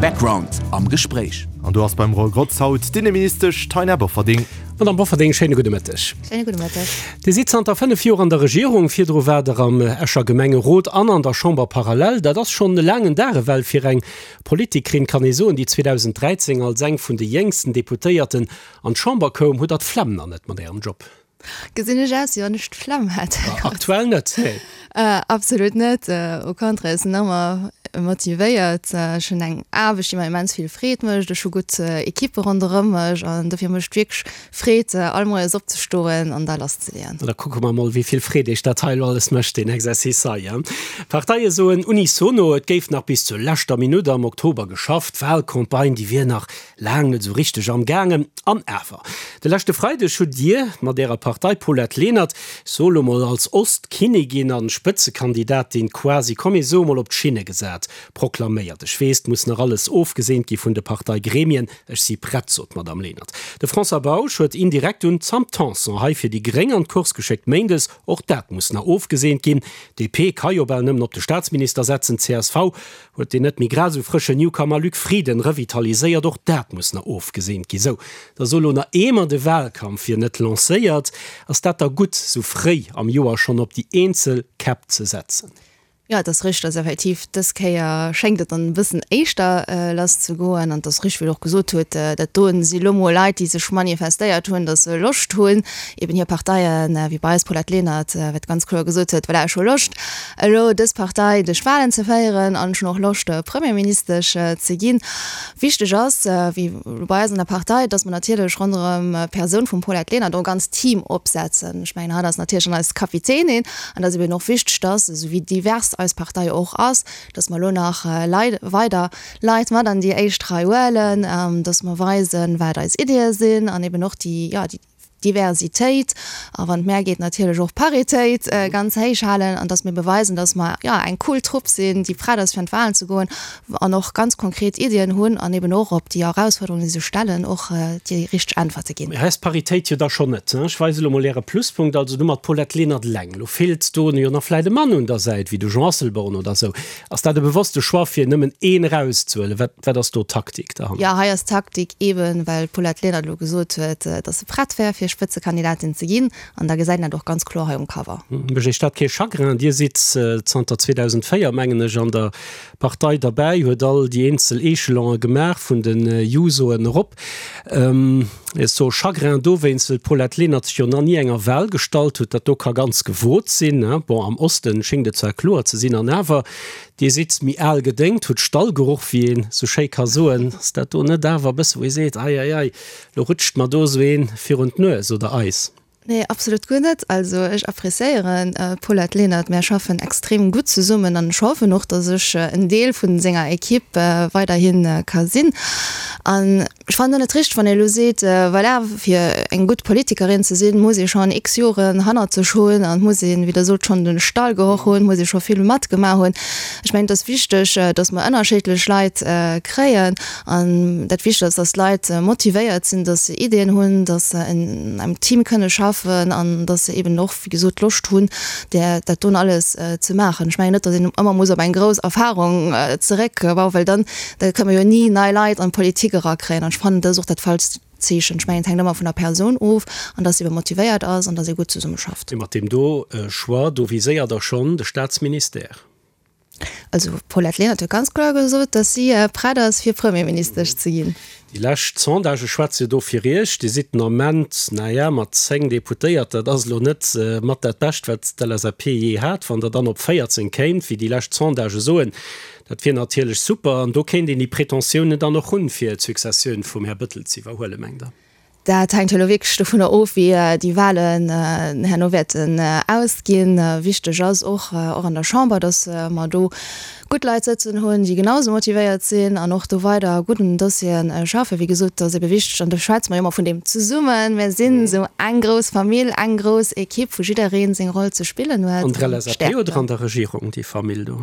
Background am Gespréich. An do ass beim Roy Grotz haut d'Inneministesch Taina Bofferding. Madame Bofferding, schéine gudde Mëtteg. Schéine gudde Mëtteg. Dir sidd zanter 5 Joer an der Regierung, virdru waart Der am Escher Gemengerot an an der Chamber parallel. Dat ass schonn e laangen Dag ewell fir eng Politikerin, kann ee soen, déi 2013 als eng vun de jéngsten Deputéierten an d'Chamber koum. Hutt Der d'Flemm nach net mat Ärem Job? Gesinn ech aus, wéi wann ech d'Flemm hätt? Aktuell net, nee. Absolut net, au contraire, ech sinn ëmmer motivéiert. Ech hunn eng Aarbecht, déi mer immens vill Freed mécht. Ech hu gutt Ekippe ronderëm mech an dofir mécht et wierklech Freed, all Moies opzestoen an da lasszeleeën. Da kucke mer mol, wéi vill Freed Iech dat hei elo alles mécht, deen Exercice hei. D'Parteie soen unisono, et géif nach bis zur leschter Minutt am Oktober geschafft. D'Walcampagne, déi wier nach Laang net esou richteg am gaangen. An awer, de leschte Freideg hutt Dir mat Ärer Partei Paulette Lenert, ech soe lo mol als Ostkinnigin an Spëtzekandidatin quasi, komm mir soe mol op d'Schinne gesat, proklaméiert. Ech weess, 't muss nach alles ofgeseent gi vun de Parteigremien. Ech si prett, sot d'Madame Lenert. De François Bausch huet indirekt un d'Sam Tanson hei fir déi Gréng an d'Course geschéckt méindes. Och dat muss nach ofgeseent ginn. DP ka jo bal nëmmen op de Staatsminister setzen. Csv Huet deen net méi grad esou frëschen Newcomer Luc Frieden revitaliséiert? Och dat muss nach ofgeseent ginn. Sou, da so lo nach eemer de Wahlkampf wier net lancéiert. Ass dat da gutt, sou fréi am Joer schonn op déi eenzel Käpp ze setzen? Jo, et ass richteg, dass effektiv dës Kéier schéngt et dann e bëssen éischter lass ze goen. An et ass richteg, wéi Der och gesot hutt, dat do si lo mol Leit, déi sech manifestéiert hunn, dass se Loscht hunn, eben hir Parteien, wéi bei eis Paulette Lenert, wat ganz kloer gesot huet, voilà, ech hu Loscht, elo dës Partei duerch d'Wahlen ze féieren an ech hunn och Loscht Premierministesch ze ginn. Wichteg ass, wéi elo bei eis an der Partei, datt mer natierlech ronderëm d'Persoun vum Paulette Lenert och e ganzt Team opsetzen. Ech mengen, hatt ass natierlech dann eis Kapitänin an et ass eben och wichteg, datt, esou wéi divers eis Partei och ass, datt mer elo nach Leit, weider Leit mat an déi éischt Rei huelen, datt mer weisen, wat eis Iddie sinn an eben och déi, jo, déi Diversitéit a wann et mär geet natierlech och Paritéit ganz héich halen an dass mir beweisen, dass mer jo eng cool Trupp sinn, déi prett ass fir an d'Wahlen ze goen an och ganz konkret Iddien hunn an eben och op déi Erausfuerderungen, déi sech stellen, och déi richteg Äntwerte ginn. Mee hei ass d'Paritéit jo da schonn net. Ech weise elo mol Äre Pluspunkt, also du mat Paulette Lenert eleng. Elo feelt do jo nach vläit e Mann un der Säit, wéi de Jean Asselborn oder esou. Ass dat e bewosste Choix, fir nëmmen een erauszehuelen? Wat, wat ass do d'Taktik derhannert? Jo, hei ass d'Taktik eeben, well d'Paulette Lenert elo gesot huet, datt se prett wär, fir Spëtzekandidatin ze ginn. An da gesäit een dat och ganz kloer hei um Cover. Mécht Iech dat kee Chagrin? Dir sidd zanter 2004, mengen ech, an der Partei derbäi, huet all déi eenzel Echelone gemaach, vun de Jusoen erop. Ech soe Chagrin dowéinst, well d'Paulette Lenert sech jo nach ni enger Wahl gestallt huet. Dat do ka ganz gewot sinn. Bon, am Osten schéngt et zwar kloer ze sinn, an awer, Dir sidd méi al gedéngt, hutt Stallgeruch, wéi een sou schéi ka soen. Ass dat do net awer e bësse wou ee seet, ei, ei, ei, lo rutscht mer do esou een virun d'Nues oder eis? Nee, absolut guer net. Also ech appréciéieren d'Paulette Lenert, mär schaffen extrem gutt zesummen an ech hoffen och, datt ech en Deel vun senger Equipe weiderhi ka sinn. An ech fannen och net richteg, wann ee elo seet, voilà, fir eng gutt Politikerin ze sinn, muss ee schonn x Joren hannert sech hunn an muss een, wéi Der sot, schonn de Stallgeroch hunn, muss ee scho vill matgemaach hunn. Ech mengen, et ass wichteg, datt mer ënnerschiddlech Leit kréien. An dat Wichtegst ass, dass d'Leit motivéiert sinn, dass se Ideeën hunn, dass se an engem Team kënne schaffen an dass se eben och, wéi gesot, Loscht hunn, dat doen alles ze maachen. Ech mengen net, dass een ëmmer muss op eng grouss Erfahrung zeréckbauen, well dann da kënne mer jo ni nei Leit an d'Politik erakréien. An ech fannen, dat ass och dat falscht Zeechen. Ech mengen, et hänkt ëmmer vun der Persoun of an dass se ebe motivéiert ass an dass ee gutt zesummeschafft. Mee mat deem do Choix, do viséiert Der schonn de Staatsministère. Also d'Paulette Lenert huet ganz kloer gesot, datt si prett ass fir Premierministesch ze ginn. Déi lescht Sondagë schwätze jo do fir Iech. Dir sidd den Ament, naja, mat 10 Deputéiert, dat ass elo net mat dat Bescht, wat d'LSAP jee hat. Wann Der dann op 14 kéimt, wéi déi lescht Sondagë soen, dat wier natierlech super. An do kéint een déi Pretentiounen dann och hunn, fir d'Successioun vum Här Bëttel ze iwwerhuelen, mengt Der? Dat hänkt jo elo wierklech dovunner of, wéi déi Wahlen herno wäerten ausginn. Wichteg ass och, och an der Chamber, datt mer do gutt Leit sëtzen hunn, déi genau esou motivéiert sinn an och do weider gutt un den Dossiere schaffen. Wéi gesot, et ass ebe wichteg, an do schwätze mer jo ëmmer vun deem Zesummen, mir sinn esou eng grouss Famill, eng grouss Equipe, wou jidderee seng Roll ze spillen huet. An der LSAP oder an der Regierung, déi Famill do?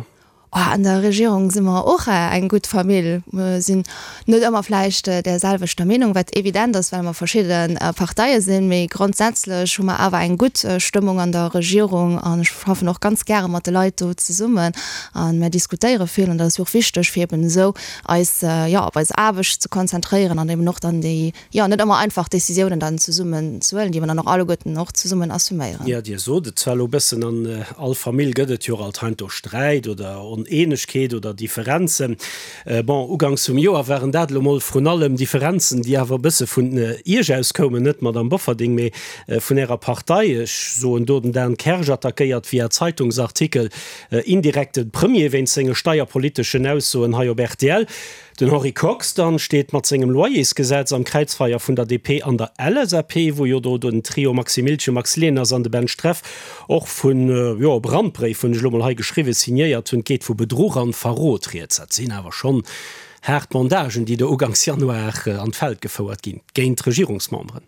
An der Regierung si mer och eng gutt Famill. Mer sinn net ëmmer vläicht där selwechter Meenung, wat evident ass, well mer verschidde Parteie sinn, mee grondsätzlech hu mer awer eng gutt Stëmmung an der Regierung an ech schaffen och ganz gäre mat de Leit do zesummen a mer diskutéiere vill an dat ass jo och wichteg, fir eben esou eis, jo, op eis Aarbecht ze konzentréieren an eben och dann déi, jo, net ëmmer einfach Décisiounen dann zesummen ze huelen, déi mer dann och alleguerten och zesummen assuméieren. Jo, Dir sot et zwar elo e bëssen, an all Famill gëtt et jo och alt heiansdo Sträit oder Oneenegkeet oder Differenzen. Bon, uganks vum Joer waren dat elo mol vrun allem Differenzen, déi awer e bësse vun Iech aus koumen, net d'Madame Bofferding, mee vun Ärer Partei. Ech soen do den Dan Kersch attackéiert via Zeitungsartikel indirekt de Premier wéinst senge steierpoliteschen Aussoen hei op rtl. Den Henri Kox dann steet mat sengem Loyersgesetz am Kräizfeier vun der DP an der LSAP, wou jo do den Trio Maxi Miltgen, Max Leners an de Ben Streff och vun, jo, e Brandbréif, hunn ech elo mol hei geschriwwen, signéiert hunn. Et geet vu Bedruch an Verrot rieds. Dat sinn awer schonn haart Bandagen, déi do uganks Januar an d'Feld gefouert ginn géint Regierungsmemberen.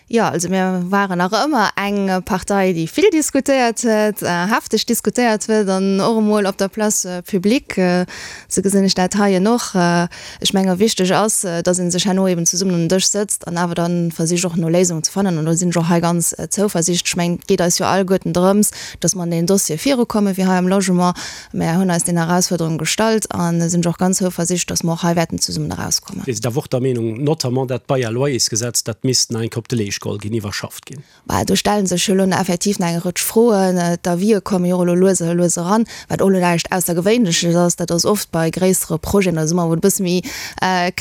Jo, also mir waren nach ëmmer eng Partei, déi vill diskutéiert huet, hefteg diskutéiert huet an och emol op der Place publique. Esou gesinn ech dat heien och. Ech menge wichteg ass, datt ee sech herno eben zesummen un den Dësch sëtzt an awer da versicht och no Léisungen ze fannen. An do sinn ech och hei ganz zouversiichtlech. Ech mengen, et geet eis jo alleguerten drëms, datt mer an deen Dossier virukommen, wéi hei am Logement. Mär hunn eis deenen Erausfuerderunge gestallt a sinn och ganz zouversiichtlech, datt mer och hei wäerten zesummen erauskommen. Dir sidd awer och der Meenung, notamment dat Bail-à-loyers-Gesetz, dat misst nach eng Kéier op de Leescht geholl ginn, iwwerschafft ginn? Bah, do stelle sech jo elo effektiv nach eng Rëtsch Froen. D'Avisë komme jo och elo lues a lues eran, wat och elo näischt Aussergewéinleches ass. Dat ass oft bei gréissere Projeten oder esou, wou et e bësse méi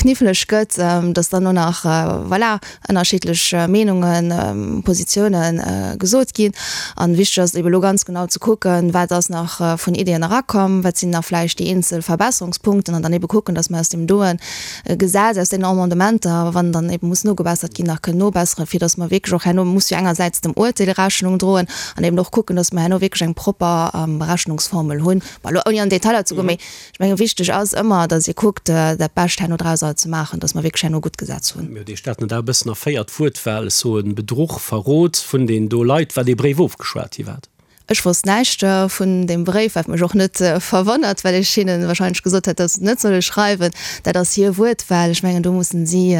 kniffleg gëtt, datt dann och nach, voilà, ënnerschiddlech Meenungen, Positiounen gesot ginn. An wichteg ass et ebe lo ganz genau ze kucken, wat ass nach vun Ideeën erakomm, wat sinn nach vläicht déi eenzel Verbesserungspunkten an dann ebe kucken, datt mer aus deem doen Gesetz, aus deenen Amendementer, wann dann ebe muss nogebessert ginn, nach kënnen nobesseren, fir datt mer wierklech och herno, muss jo engersäits dem Uerteel Rechnung droen an eben och kucken, datt mer herno wierklech eng propper Berechnungsformel hunn. Bon, elo ouni an Detailer ze goen, mee Ech mengen, wichteg ass ëmmer, datt ee kuckt, dat Bescht herno drauser ze maachen, datt mer wierklech herno gutt Gesetz hunn. Mir huet Iech dat net awer e bëssen erféiert, d'Wuertwahl, ech soen Bedruch, Verrot vun den do Leit, wat ee Bréif ofgeschwat gi wat? Ech wosst näischt vun deem Bréif, wat mech och net verwonnert, well ech hinne wahrscheinlech gesot hätt, datt se et net solle schreiwen. Dat ass hir Wuertwahl. Ech mengen, do mussen si,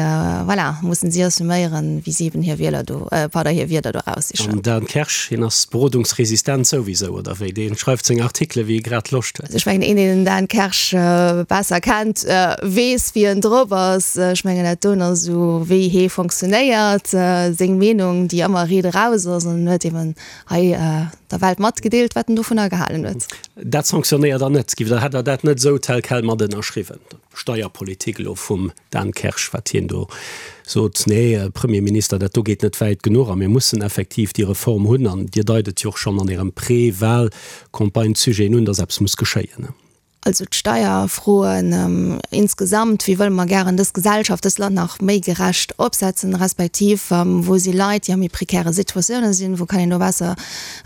voilà, mussen si assuméieren, wéi si eben hir Wieler do, pardon, hir Wierder do eraussichen. An Dan Kersch, hien ass berodungsresistent souwisou, oder wéi? Dee schreift seng Artikele wéi e grad Loscht huet. Ech mengen, een, deen den Dan Kersch besser kennt, weess, wéi en drop ass. Ech mengen, dat doen ass esou, wéi hee fonctionnéiert, seng Meenung, déi ëmmer riit eraus ass. An en huet eben hei der Welt matgedeelt, wat en dovunner gehalen huet. Dat sanctionnéiert Der net? Giff Der, hätt Der dat net esou tel quel mat ënnerschriwwen, d'Steierpolitik elo vum Dan Kersch, wat hien do sot, Nee, Premierminister, dat do geet net wäit genuch a mir mussen effektiv déi Reform hunn. An Dir deit et jo och schonn an Ärem Pré-Wahl-Campagne-Sujeten un, datt eppes muss geschéien. Also d'Steierfroen insgesamt, wéi wëlle mer gären dës Gesellschaft, dëst Land nach méi gerecht opsetzen, respektiv wou si Leit, déi a méi prekäre Situatiounen sinn, wou kann een do besser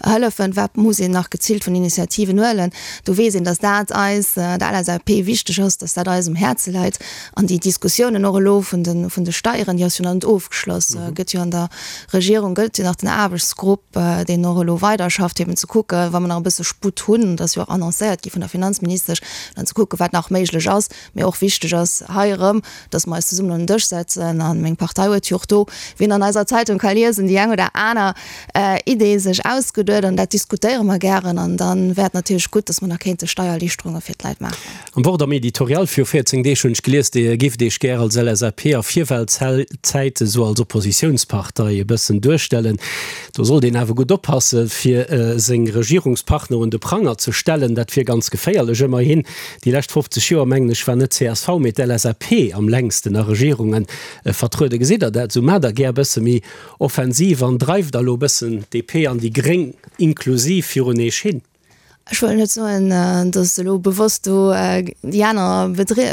hëllefen, wat muss een nach geziilt vun Initiativen huelen. Do weess een, datt dat eis, der LSAP, wichteg ass, datt dat eis um Häerze läit. An déi Diskussiounen och elo vun de, vun de Steieren, déi ass jo nach net ofgeschloss, gëtt jo an der Regierung, gëtt jo nach den Aarbechtsgrupp, deen och elo weiderschafft, fir eben ze kucken, wa mer nach e bësse Sputt hunn, dat ass jo och annoncéiert gi vun der Finanzministesch, dann ze kucken, wat nach méiglech ass. Mee och wichteg ass hei erëm, dass mer eis zesummen un den Dësch setzen. A meng Partei huet jo och do, wéi een an eiser Zeitung ka liesen, déi eng oder aner Idee sech ausgeduet. An dat diskutéiere mer gären. An da wär et natierlech gutt, dass mer nach kéinte Steiererliichterunge fir d'Leit maachen. Am Wort am Editorial viru 14 Deeg hunn ech gelies, Dir géift Iech gär als LSAP a Virwahlzäite sou als Oppositiounspartei e bëssen duerstellen. Do sollt een awer gutt oppasse fir seng Regierungspartner un de Pranger ze stellen, dat wier ganz geféierlech. Ëmmerhin, déi lescht 50 Joer, mengen ech, war net csv, mee d'LSAP am längsten a Regierunge vertrueden. Gesitt Der dat esou? Maacht Der gär e bësse méi Offensiv an dreift Der elo e bëssen d'DP an déi Gréng inklusiv virun Eech hin? Ech wëll net soen, datt elo bewosst do déi aner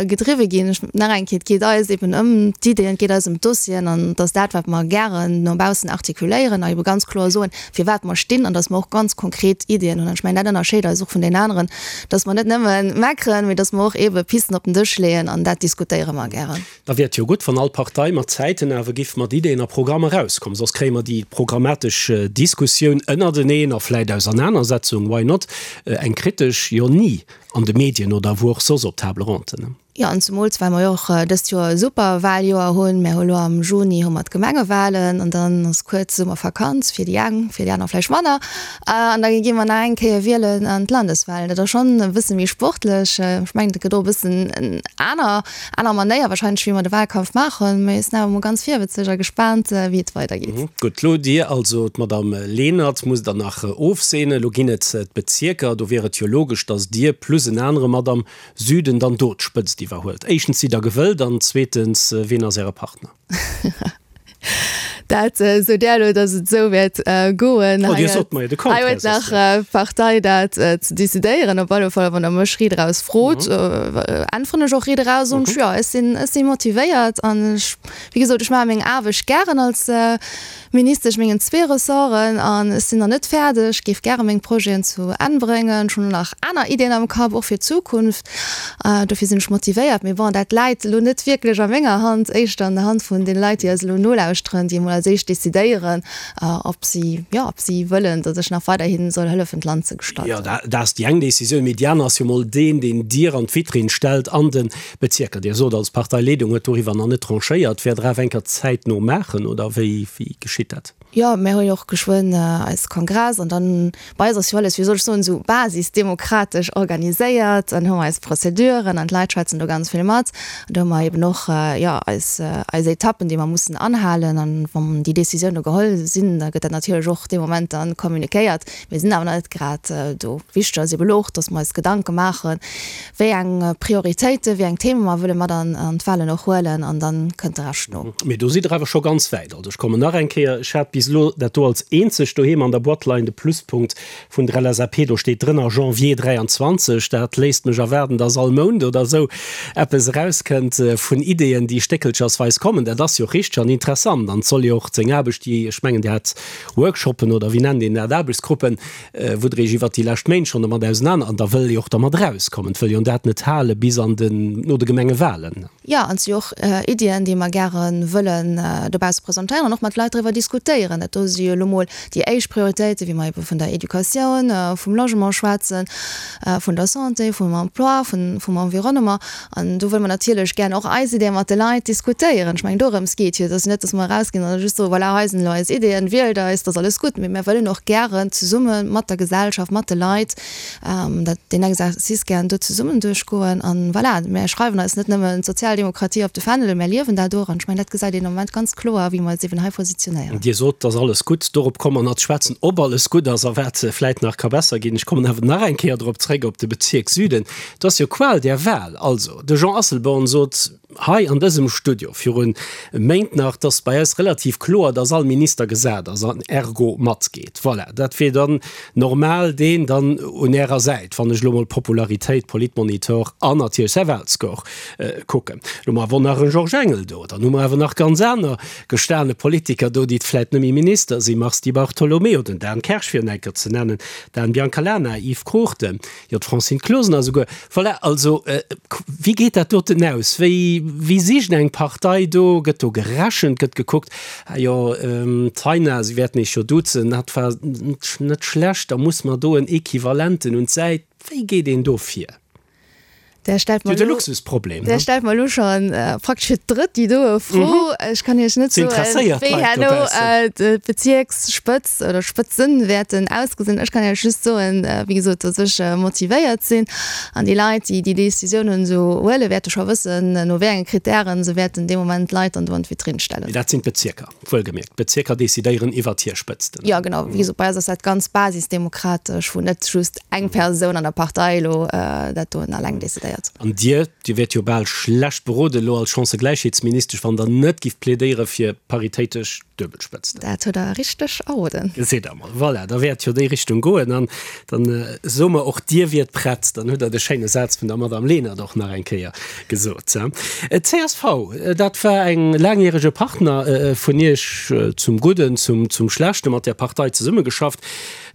gedriwwe ginn. Ech, nach eng Kéier, et geet eis eben ëm d'Iddien, et geet eis ëm d'Dossieren an et ass dat, wat mer gären no baussen artikuléieren a ebe ganz kloer soen, fir wat mer stinn an datt mer och ganz konkret Iddien hunn. An ech mengen, dat ënnerscheet eis och vun deenen aneren, datt mer net nëmme meckeren, mee datt mer och ebe Pisten op den Dësch leeën an dat diskutéiere mer gären. Da wier et jo gutt, wann all Partei mat Zäiten awer giff mat Ideen a Programm erauskommen. Soss kréie mer déi programmatesch Diskussioun ënnerteneen a vläit Ausernanersetzung, why not? Eng kritesch jo ni an de Medien oder wou och soss op Table ronden. Jo, an zemools well mer jo och dëst Joer e super Wahljoer hunn. Mär hu lo am Juni hu mer d'Gemengewahlen an dann ass kuerz Summervakanz fir déi eng, fir déi aner vläicht manner. An da gi mer nach eng Kéier wielen an d'Landeswahlen. Dat ass schonn e bësse méi sportlech. Ech mengen, dat gëtt och e bëssen en aner, aner Manéier wahrscheinlech, wéi mer de Wahlkampf maachen. Mee ech sinn awer mol ganz virwëtzeg a gespaant, wéi et weidergeet. Gutt, lo Dir also, d'Madame Lenert musst Der nach ofseenen. Lo ginn et d'Bezierker. Do wier et jo logesch, datt Dir plus en anere mat am Süden dann do d'Spëtzt iwwerhuelt. Éischtens, sidd Der gewëllt an zweetens, wien ass Äre Partner? Dat sot Der elo, datt et esou wäert goen. Oh, Dir sot mer jo de Contraire. Hei huet nach d'Partei dat ze decidéieren. Op alle Fall, wann Der mech riit eraus frot, äntweren ech och riit eraus. Und jo, ech sinn, ech si motivéiert an ech, wéi gesot, ech maache meng Aarbecht gären als Ministesch mengen zwee Ressorten an ech sinn nach net fäerdeg, géif gäre meng Projeten zu Enn bréngen. Ech hunn och nach aner Iddien am Kapp, och fir d'Zukunft. Dofir sinn ech motivéiert. Mee bon, dat läit elo net wierklech a menger Hand, éischter an der Hand vun deene Leit, déi eis elo nolauschteren, déi emol als éischt decidéieren, ob si, jo, ob si wëllen, datt ech nach weiderhi soll hëllefen, d'Land ze gestalten. Jo, dat ass déi eng Decisioun. Mee déi aner ass jo emol deen, deen Dir an d'Vitrinn stellt an de Bezierker. Dir sot, als Parteileedung huet doriwwer nach net tranchéiert. Wäert Der awer eng Kéier zäitno maachen, oder wéi geschitt dat? Jo, mär hu jo och geschwënn eis Kongress an dann, bei eis ass jo alles, wéi soll ech soen, esou basisdemokratesch organiséiert. Dann hu mer eis Prozeduren an d'Leit schwätzen do ganz vill mat. An do hu mer eben och, jo, eis, eis Etappen, déi mer mussen anhalen. An wann déi Décisioune geholl sinn, da gëtt dat natierlech och dee Moment dann communiquéiert. Mir sinn awer nach net grad do. Wichteg ass eben elo och, dass mer eis Gedanke maachen, wéi eng Prioritéiten, wéi eng Theme mer wëlle mat an d'Wahlen och huelen an dann kënnt de Rescht no. Mee do sidd Der awer scho ganz wäit. Also ech kommen nach eng Kéier, ech hat bis elo dat do als eenzegt doheem an der Boîte leien, de Pluspunkt vun der LSAP, do steet drënner Janvier 23. Dat léisst mech erwaarden, dass all Mount oder esou eppes erauskënnt vun Ideeën, déi stéckelchersweis kommen. Dat ass jo richteg an interessant an et soll jo och seng Aarbecht, déi, ech mengen Dir hat Workshoppen oder wéi nennt een dat, Aarbechtsgruppen, wou Der Iech iwwert déi lescht Méint schonn domat ausenaner, an da wëll ee och dermat erauskommen, et wëll jo dat net hale bis an den, no de Gemengewahlen. Jo, an et si jo och Iddien, déi mer gäre wëllen dobausse presentéieren an och mat Leit driwwer diskutéieren. Dat do si jo elo mol déi éischt Prioritéiten, wéi mer ebe vun der Educatioun, vum Logement schwätzen, vun der Santé, vum Emploi, vum Environnement. An do wëlle mer natierlech gären och eis Ideeë mat de Leit diskutéieren. Ech mengen, dorëms geet jo. Et ass jo net, datt mer erausginn an da just soen, voilà, hei sinn elo eis Ideeën, wielt eis, et ass alles gutt. Mee mir wëllen och gären zesumme mat der Gesellschaft, mat de Leit dat, deen Exercice gären do zesummen duerchgoen. An voilà, mir schreiwen eis net nëmmen d'Sozialdemokratie op de Fändel, mä liewen dat och. An ech mengen, dat gesäit een am Moment ganz kloer, wéi mer eis eeben hei positionéieren. Dir sot, et ass alles gutt. Dorop komme mer nach ze schwätzen, ob alles gutt ass a wat vläit nach ka besser ginn. Ech kommen awer nach eng Kéier drop zréck, op de Bezierk Süden. Et ass jo Qual der Wahl. Also, de Jean Asselborn sot hei an dësem Studio virun Méint nach, dass bei eis relativ kloer, dass all Minister gesat ass an ergo matgeet. Voilà, dat wier dann normal deen dann un Ärer Säit, wann ech elo mol Popularitéit, Politmonitor an natierlech säi Wahlscore kucken. Elo hu mer awer och nach e Georges Engel do, dann hu mer awer nach ganz aner gestane Politiker do, déi vläit net méi Minister sinn, Mars Di Bartolomeo, den Dan Kersch fir en enker ze nennen, Dan Biancalana, Yves Cruchten. Jo, d'Francine Closener esouguer. Voilà, also wéi geet dat doten aus? Wéi, wéi sicht eng Partei do? Gëtt do gerechent? Gëtt gekuckt, ah jo, d'Taina, si wäerten Iech jo duzen, dat war net schlecht, da muss mer do en Equivalenten un d'Säit. Wéi geet een do vir? Där stellt mer elo, Luxusproblem, där stellt mer elo scho praktesch fir d'drëtt déi doe Fro. Ech kann Iech net soen, wéi herno d'Bezierksspëtz oder Spëtzen wäerten ausgesinn. Ech kann Iech just soen, wéi gesot, datt ech motivéiert sinn an déi Leit, déi déi Decisiounen esou huelen, wäerte scho wëssen, no wéi enge Krittären se wäerten dee Moment d'Leit dann do an d'Vitrinn stellen. Mee dat sinn d'Bezierker. Wuelgemierkt, d'Bezierker decidéieren iwwert hir Spëtzten. Jo, genau. Wéi gesot, bei eis ass dat ganz basisdemokratesch, wou net just eng Persoun an der Partei elo dat doen alleng decidéiert. An Dir, Dir wiert jo bal schlecht beroden elo als Chancëgläichheetsministesch, wann Der net gift plädéiere fir paritéitesch Duebelspëtzten. Dat hutt Der richteg erroden. Gesitt Der mol. Voilà, da wäert jo déi Richtung goen. An dann soe mer och, Dir wiert prett. Dann hutt Der de schéine Saz vun der Madame Lenert och nach eng Kéier gesot. Csv, dat war eng laangjärege Partner vun Iech, zum Gudden, zum Schlechten, mat där Partei zesummegeschafft.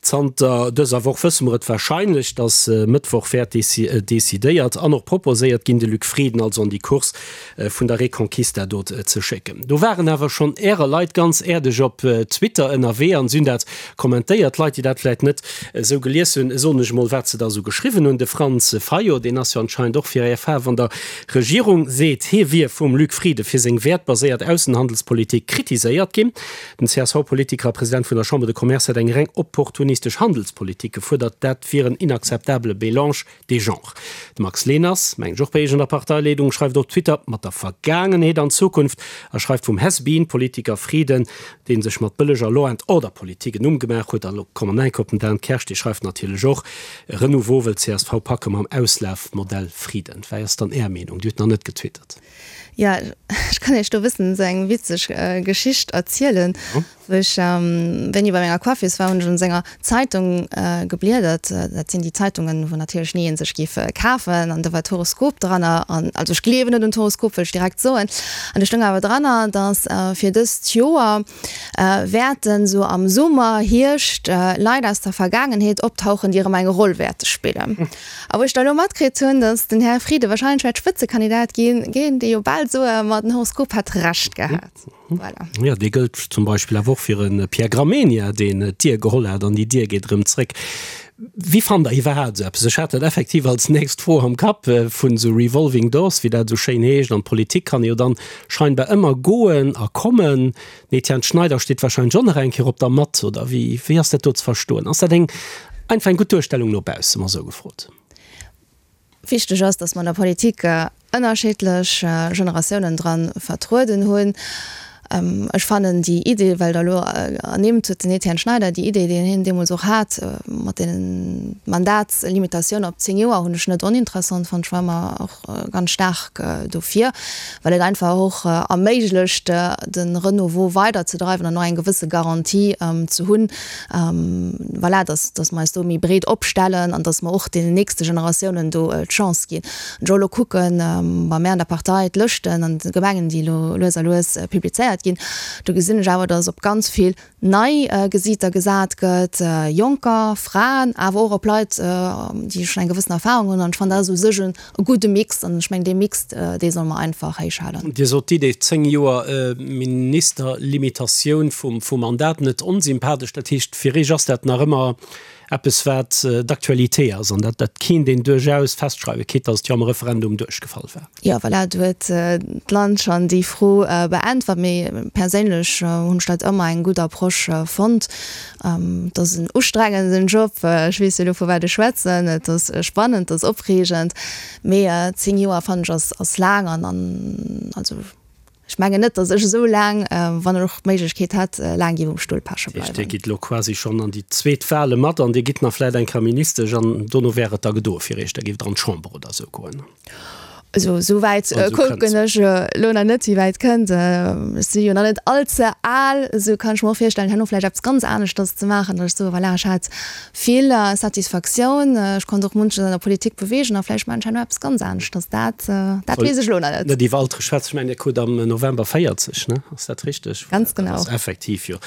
Zanter dëser Woch wësse mer et warscheinlech, datt Mëttwoch wäert decidéiert an och proposéiert ginn, de Luc Frieden also an déi Course vun der Reconquista do ze schécken. Do waren awer schonn Ärer Leit ganz äerdeg op Twitter ënnerwee an si hunn dat kommentéiert. Leit, déi dat vläit net esou gelies hunn, soen ech emol, wat se da esou geschriwwen hunn. De Franz Fayot, deen ass jo anscheinend och fir Är Faarf an der Regierung, seet, hie wier vum Luc Frieden fir seng wäertbaséiert Aussenhandelspolitik kritiséiert ginn. Den CSV-Politiker a President vun der Chambre de Commerce hätt eng reng opportunistesch Handelspolitik gefuerdert. Dat wier en inakzeptabele Mélange des genres. De Max Leners, mengen ech och bei Iech an der Parteileedung, schreift op Twitter mat der Vergaangenheet an Zukunft a schreift vum Has-been-Politiker Frieden, dee sech mat bëlleger Law and Order-Politik en Numm gemaach huet. A lo kommen mer enk op den Dan Kersch, dee schreift natierlech och, Renouveau wëll csv packe mam Auslafmodell Frieden. Wei ass dann Är Meenung? Dir hutt nach net getwittert. Jo, ech kann Iech do e bëssen esou eng witzeg Geschicht erzielen. Wou ech wéini bei menger Coiffeuse war, hunn ech un senger Zeitung gebliedert. Dat sinn déi Zeitungen, wou natierlech ni een sech géif kafen. An do war d'Horoskop dranner. An also ech gleewen net un d'Horoskop, wëll ech direkt soen. An do stoung awer dranner, datt fir dëst Joer wäerten esou am Summer, Hierscht Leit aus der Vergaangenheet optauchen, déi erëm eng Roll wäerte spillen. A wou ech da elo matkritt hunn, datt den Här Frieden wahrscheinlech wäert Spëtzekandidat ginn, géing ee jo bal soen, ma den Horoskop hätt Recht gehat. Voilà. Jo, dee gëllt zum Beispill awer och fir e Pierre Gramegna, deen d'Dier geholl hat an déi Dier geet erëm zréck. Wéi fannt Der iwwerhaapt esou eppes? Ech hat dat effektiv als nächst Fro am Kapp, vun esou revolving doors, wéi dat esou schéin heescht. An d'Politik kann ee jo dann scheinbar ëmmer goen a kommen. Den Etienne Schneider steet wahrscheinlech och nach eng Kéier op der Matt, oder wéi, wéi ass dat do ze verstoen? Ass dat eng einfach eng gutt Duerstellung no bausse, mol esou gefrot? Wichteg ass, datt mer an der Politik ënnerschiddlech Generatiounen dra vertrueden hunn. Ech fannen déi Idee, well Der elo ernimmt hutt, den Etienne Schneider, déi Idee, déi hien deemools och hat mat deenen Mandatslimitatioun op 10 Joer, hunn ech net oninteressant fonnt. Ech war ëmmer och ganz staark dofir, well et einfach och erméiglecht, de Renouveau weiderzedreiwen an och eng gewësse Garantie ze hunn, voilà, dass, dass mer eis do méi breet opstellen an dass mer och deenen nächste Generatiounen do d'Chance ginn. Wann ech och elo kucken, bei mär an der Partei, d'Lëschten an de Gemengen, déi elo lues a lues publizéiert ginn, do gesinn ech awer, dass op ganz vill nei Gesiiter gesat gëtt, Jonker, Fraen, awer och op Leit, déi schonn eng gewëssen Erfahrung hunn. An ech fannen, dat ass u sech e gudde Mix. An ech mengen, dee Mix, dee solle mer einfach héichhalen. Dir sot d'Idee 10 Joer Ministerlimitatioun vum Mandat net onsympathesch. Dat heescht, fir Iech ass dat nach ëmmer eppes, wat d'Actualité ass an dat dat kéint een duerchaus festschreiwen, quitte datt et jo am Referendum duerchgefall war. Jo, voilà, do huet d'Land schonn déi Fro beäntwert. Mee perséinlech hunn ech dat ëmmer eng gutt Approche fonnt. Et ass en ustrengenden Job, ech weess jo elo vu wat ech schwätzen. Et ass spannend, et ass opreegend, mee 10 Joer fannen ech ass ass laang an an also ech mengen net, datt ech esou laang, wann ech och d'Méiglechkeet hätt, laang géif um Stull peche bleiwen. Dat heescht, Dir gitt elo quasi schonn an déi zweet Wale mat an Dir gitt nach vläicht eng Kéier Ministesch an dono wär et da gedoe fir Iech, da géift Der an d'Chamber oder esou goen? Also esou wäit kucken ech elo nach net, wéi wäit kënnt. Ech si jo nach net all ze al, esou kann ech mer och virstellen, herno vläicht eppes ganz aneschters ze maachen, datt ech soe voilà, ech hat vill Satisfaktioun, ech konnt och munches an der Politik beweegen a vläicht maachen ech herno eppes ganz aneschters. Dat, dat weess ech elo nach net. Net iwwer Altere schwätzen. Ech mengen, Dir krut am November 40, ne? Ass dat richteg? Ganz genau. Dat ass effektiv jo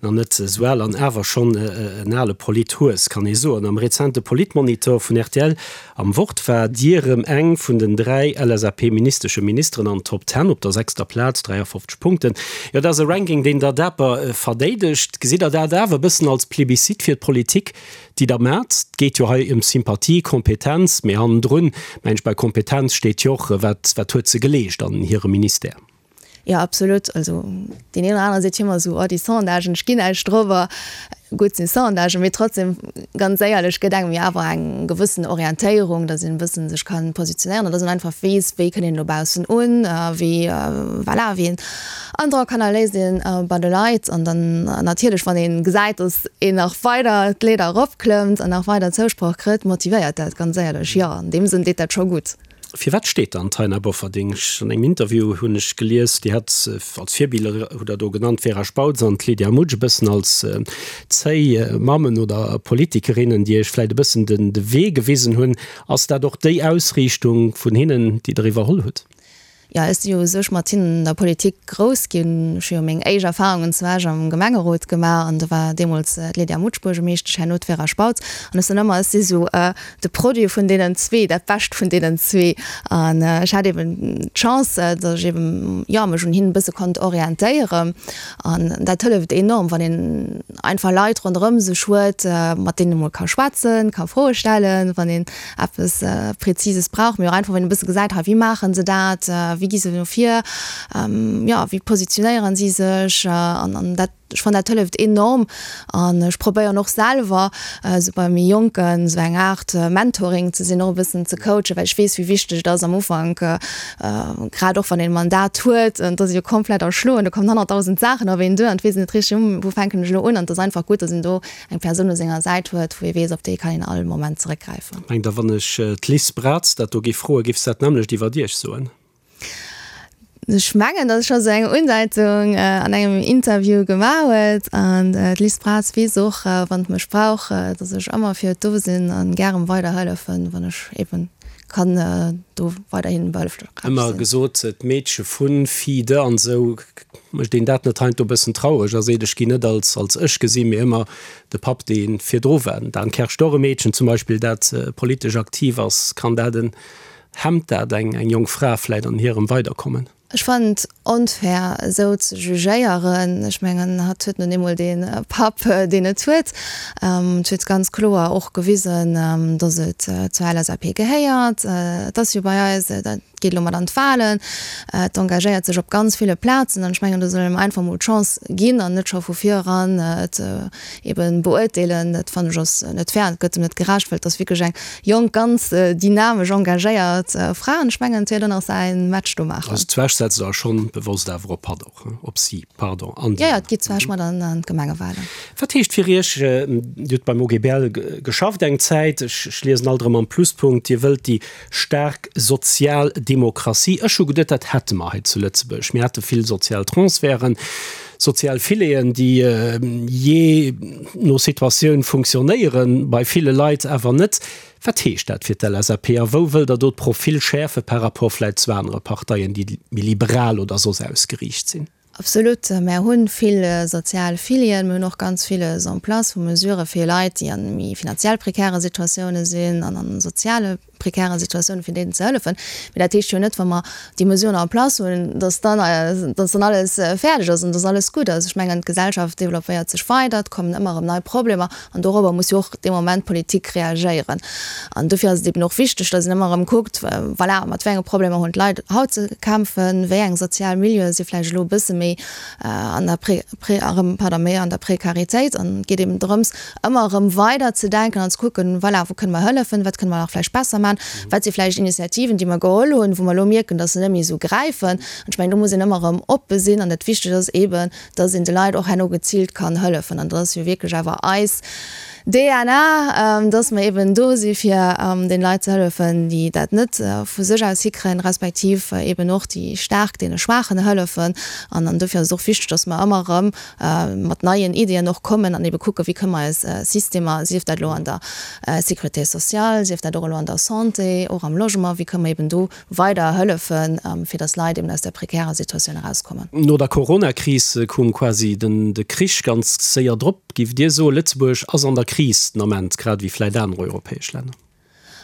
nach net esou al an awer schonn en ale Polithues, kann ee soen. Am rezente Politmonitor vun rtl Am Wort war Dir rëm eng vun den 3 LSAP-ministesche Ministeren an Top Ten op der sechster Plaz, 53 Punkten. Jo, dat ass e Ranking, deen Der daper verdeedegt. Gesitt Der dat awer e bëssen als Plebiscite fir d'Politik, déi Der maacht? Et geet jo hei ëm Sympathie, Kompetenz, mee hannendrun, mengen ech, bei Kompetenz steet jo och, wat, wat huet se geleescht an hirem Ministère? Jo, absolut. Also deen een oder anere seet jo ëmmer esou, oh déi Sondagen, ech ginn näischt drop. Gutt, sinn Sondagen, mee trotzdem, ganz éierlech, gëtt engem jo awer eng gewëssen Orientéierung, datt een e bëssen sech ka positionéieren an datt een einfach weess, wéi kënnt een dobaussen un, wéi, voilà, wéi een Androck hannerléisst een bei de Leit. An dann natierlech, wann ee gesäit, datt een nach weider d'Leeder eropklëmmt an nach weider Zousproch kritt, motivéiert dat, ganz éierlech. Jo, an deem Sënn deet dat scho gutt. Firwat steet dann d'Taina Bofferding? An engem Interview hunn ech gelies, Dir hätt als Virbiller, hutt Der do genannt, d'Vera Spautz an d'Lydia Mutsch e bëssen als zéi Mammen oder Politikerinnen, déi Iech vläicht e bëssen de Wee gewisen hunn. Ass dat och déi Ausriichtung vun hinnen, déi Der iwwerholl hutt? Jo, ech si jo u sech mat hinnen an der Politik grouss ginn. Ech hu jo meng éischt Erfarungen zu Esch am Gemengerot gemaach an do war deemools d'Lydia Mutsch Buergermeeschtesch, herno d'Vera Spautz. An ech soen ëmmer, ech si sou de Produit vun deenen zwee, dat Bescht vun deenen zwee. An ech hat eben d'Chance, datt ech eben, jo, mech un hinnen e bësse konnt orientéieren. An dat hëlleft enorm, wann een einfach Leit ronderëm sech huet, mat deenen ee mol ka schwätzen, ka Froe stellen, wann een eppes Präzises brauch, mee och einfach wann een e bësse gesäit, hei wéi maache se dat, wéi gi se no vir, jo wéi positionéieren si sech an an dat, ech fannen dat hëlleft enorm an ech probéieren och selwer esou bei méi Jonken esou eng Aart Mentoring ze sinn, och e bëssen ze coachen, well ech weess wéi wichteg et ass am Ufank, grad och wann een e Mandat huet an et ass ee jo komplett erschloen, do kommen 100.000 Saachen op een duer an et weess een net richteg, wou fänken ech elo un an et ass einfach gutt, datt een do eng Persoun u senger Säit huet, wou ee weess, op déi kann een all Moment zeréckgräifen. Mengt Der, wann ech d'Liz Braz dat do géif froen, géif se dat nämmlecht iwwert Iech soen? Ech mengen, datt ech scho sou eng Undeitung an engem Interview gemaach huet. An d'Liz Braz weess och, wann et mech brauch, datt ech ëmmer fir et do sinn a gären weiderhëllefen, wann ech eben kann do weiderhin behëlflech sinn. Ëmmer gesot, d'Meedche vun, Fille de an esou, mécht een dat net heiansdo e bëssen traureg a seet, ech ginn net als als ech gesinn, mee ëmmer de Papp, dee virdru war. Den Dan Kersch, och e Meedchen zum Beispill, dat politesch aktiv ass, kann dat en, hemmt dat eng eng jonk Fra vläit an hirem Weiderkommen? Ech fannen et onfair esou ze jugéieren. Ech mengen hatt huet nun eemol dee Papp deen et huet. Et huet ganz kloer och gewisen, datt et zur LSAP gehéiert. Et ass jo bei eis, dat geet elo mat an d'Wahlen, et engagéiert sech op ganz ville Plazen an ech mengen do soll een em einfach mol d'Chance ginn an net scho vu vir eran et eben beurteelen. Dat fannen ech ass net fair an et gëtt em net gerecht, well et ass wierklech eng Jonk, ganz dynamesch, engagéiert Fra an ech mengen et wäert och nach säin Match do maachen. Also d'Zwesch setzt der schonn bewosst awer op hatt och, op si, pardon, an déi. Jo, jo, et geet d'Zwesch mat an d'Gemengewahlen. Wat heescht fir Iech, Dir hutt beim OGBL geschafft eng Zäit, ech liesen alt erëm am Pluspunkt, Dir wëllt déi staark sozial Demokratie. Ech hu geduet, dat hätte mer hei zu Lëtzebuerg. Mir hate vill sozial Transferten, sozial Fileten, déi jee no Situatioun funktionéieren, bei ville Leit awer net. Wat heescht dat fir d'LSAP a wou wëllt Der do d'Profil schäerfe par rapport vläicht zu anere Parteien, déi méi liberal oder soss ausgeriicht sinn? Absolut. Mär hu vill sozial Filien, mir hunn och ganz villes en place vu Mesurë fir Leit, déi a méi finanziell prekäre Situatioune sinn an a soziale prekäre Situatiounen, fir deenen ze hëllefen. Mee dat heescht jo net, wa mer déi Mesuren en place hunn, dass dann, dass dann alles fäerdeg ass an dass alles gutt ass. Ech mengen, d'Gesellschaft developpéiert sech weider, et kommen ëmmer erëm nei Problemer an dorobber muss jo och dee Moment d'Politik reagéieren. An dofir ass et eben och wichteg, dass een ëmmer erëm kuckt, voilà, mat wéi enge Problemer hunn d'Leit haut ze kämpfen, wéi eng sozial Milieue si vläicht elo e bësse méi an der Pré, Pré, erëm, pardon, méi an der Prekaritéit. An et geet eben drëms, ëmmer erëm weider ze denken an ze kucken, voilà, wou kënne mer hëllefen, wat kënne mer nach vläicht besser maachen, wat si vläicht Initiativen, déi mer geholl hunn, wou mer elo mierken, dass se net méi esou gräifen. An ech mengen, do muss een ëmmer erëm oppe sinn an dat Wichtegt ass eeben, dass een de Leit och herno geziilt kann hëllefen. An dat ass jo wierklech awer eis DNA, dass mer eeben do si fir den Leit ze hëllefen, déi dat net vu sech aus hikréien, respektiv eeben och déi Staark deene Schwaachen hëllefen. An dofir ass et och wichteg, dass mer ëmmer erëm mat neien Iddien och kommen an ebe kucken, wéi kënne mer eis Systemer, sief dat elo an der Sécurité sociale, sief dat och elo an der Santé, och am Logement, wéi kënne mer eben do weider hëllefen, fir datt Leit eben aus där prekärer Situatioun erauskommen. No der Coronakris koum quasi den de Krich ganz séier drop. Giff Dir soen, Lëtzebuerg ass an der Kris den Ament, grad ewéi vläit aner europäesch Länner?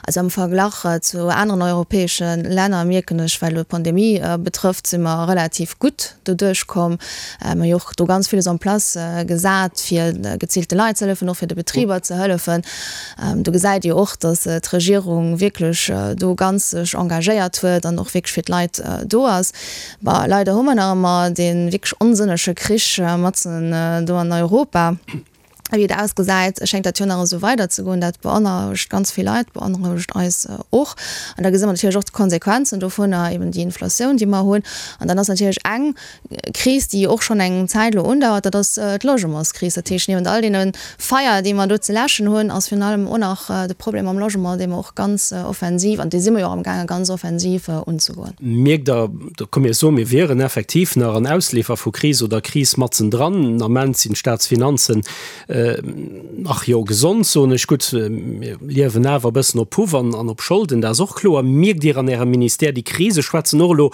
Also am Verglach zu aneren europäesche Länner mierken ech, wat elo d'Pandemie betrëfft, si mer relativ gutt doduerch komm. Mir hu jo och do ganz villes en place gesat, fir geziilte Leit ze hëllefen, och fir de Betriber ze hëllefen. Do gesäit ee jo och, datt d'Regierung wierklech do ganz sech engagéiert huet an och wierklech fir d'Leit do ass. Bon, leider hu mer nach ëmmer dee wierklech onsënnege Krich matzen do an Europa. Wéi et ausgesäit, schéngt dat jo nach esou weiderzegoen. Dat beonrouegt ganz vill Leit, beonrouegt eis och. An da gesi mer natierlech och d'Konsequenzen dovunner, eben déi Inflatioun, déi mer hunn. An dann ass natierlech eng Kris, déi och schonn eng Zäit elo undauert, dat ass d'Logementskris. Dat heescht, niewent all deene Feier, déi mer do ze läschen hunn, ass virun allem och nach de Problem mam Logement, dee mer och ganz offensiv, an dee si mer jo och amgaangen, ganz offensiv unzegoen. Mierkt Der, da komm mir soen, mir wieren effektiv nach an Ausleefer vu Kris oder Kris matzendran. Den Ament sinn d'Staatsfinanzen. Ach jo, gesond soen ech. Gutt, mir liewen awer e bëssen op Puff an op Scholden, dat ass och kloer. Mierkt Dir an Ärem Ministère déi Krise? Schwätzen och elo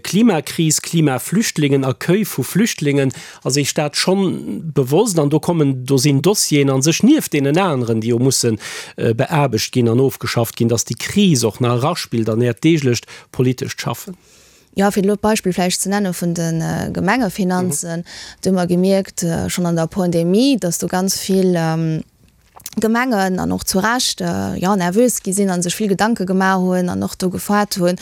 Klimakris, Klimaflüchtlingen, Accueil vu Flüchtlingen. Ass Iech dat schonn bewosst? An do kommen, do sinn Dossieren a sech nieft deenen aneren, déi jo musse beaarbecht ginn an ofgeschafft ginn, datt déi Kris och nach eraspillt an Äert deeglecht politescht Schaffen. Jo, fir elo d'Beispill vläicht ze nenne vun de Gemengefinanzen, do hu mer gemierkt, schonn an der Pandemie, datt do ganz vill Gemengen, an och zu Recht, jo, nervös gi sinn a sech vill Gedanke gemaach hunn an och do gefaart hunn,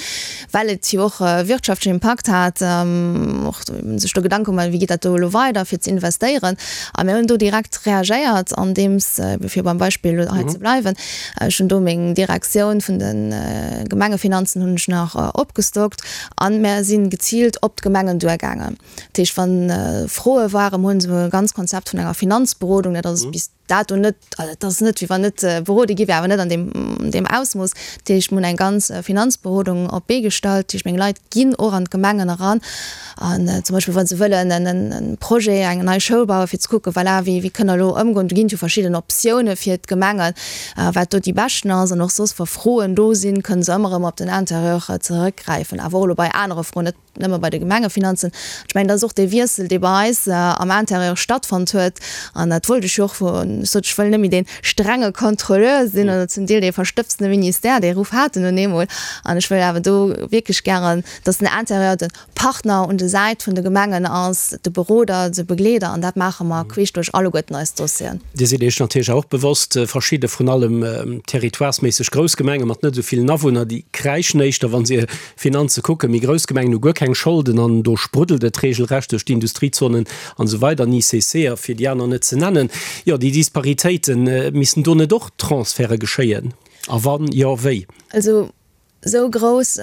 well et jo och e wirtschaftlechen Impakt hat, och sech do Gedanke gemaach hunn, wéi geet dat do elo weider, fir ze investéieren. A mir hunn do direkt reagéiert, andeems, fir beim Beispill elo hei ze bleiwen, Ech hunn do meng Direktioun vun de Gemengefinanzen hunn ech nach opgestockt an mär si geziilt op d'Gemengen duergaangen. Dat heescht, wa Froe waren, mir hunn esou e ganz Konzept vun enger Finanzberodung, dat ass bis dato net, also et ass net wéi wann net berode gi wär, awer net an deem deem Ausmooss. Dat heescht, mir hunn eng ganz Finanzberodung op d'Bee gestallt. Dat heescht, meng Leit ginn och an d'Gemengen eran An zum Beispill, wa se wëllen en Projet, eng nei Schoul bauen, fir ze kucken, voilà, wéi, wéi kënne mer elo ëmgoen. Do ginn et jo verschidden Optioune fir d'Gemengen, wat do déi beschten ass. An och soss, wa Froen do sinn, kënne se ëmmer erëm op den Interieur zeréckgräifen. Awer och elo bei anere Froen, net nëmme bei de Gemengefinanzen. Ech mengen, dat ass och dee Wiessel, dee bei eis am Interieur stattfonnt huet. An dat wollt ech jo och, ech sot, ech wëll net méi dee strenge Contrôleur sinn oder zum Deel dee verstëbsene Ministère, dee Ruff hat en nun eemol. An ech wëll awer do wierklech gären, dass den Interieur de Partner un de Säit vun de Gemengen ass, de Beroder, de Begleeder, an dat maache mer queesch duerch alleguerten eis Dossieren. Dir sidd Iech natierlech och bewosst, verschidde, vrun allem territoiresméisseg grouss Gemenge mat net esou villen Awunner, déi kräischen éischter, wa se hir Finanze kucken. Méi grouss Gemengen hu guer keng Scholden an do spruddelt et regelrecht duerch d'Industriezonen an esou weider, an ICC a fir déi aner net ze nennen. Jo, déi Disparitéiten, missten do net och Transferte geschéien? A wann jo, wéi? Also Esou grouss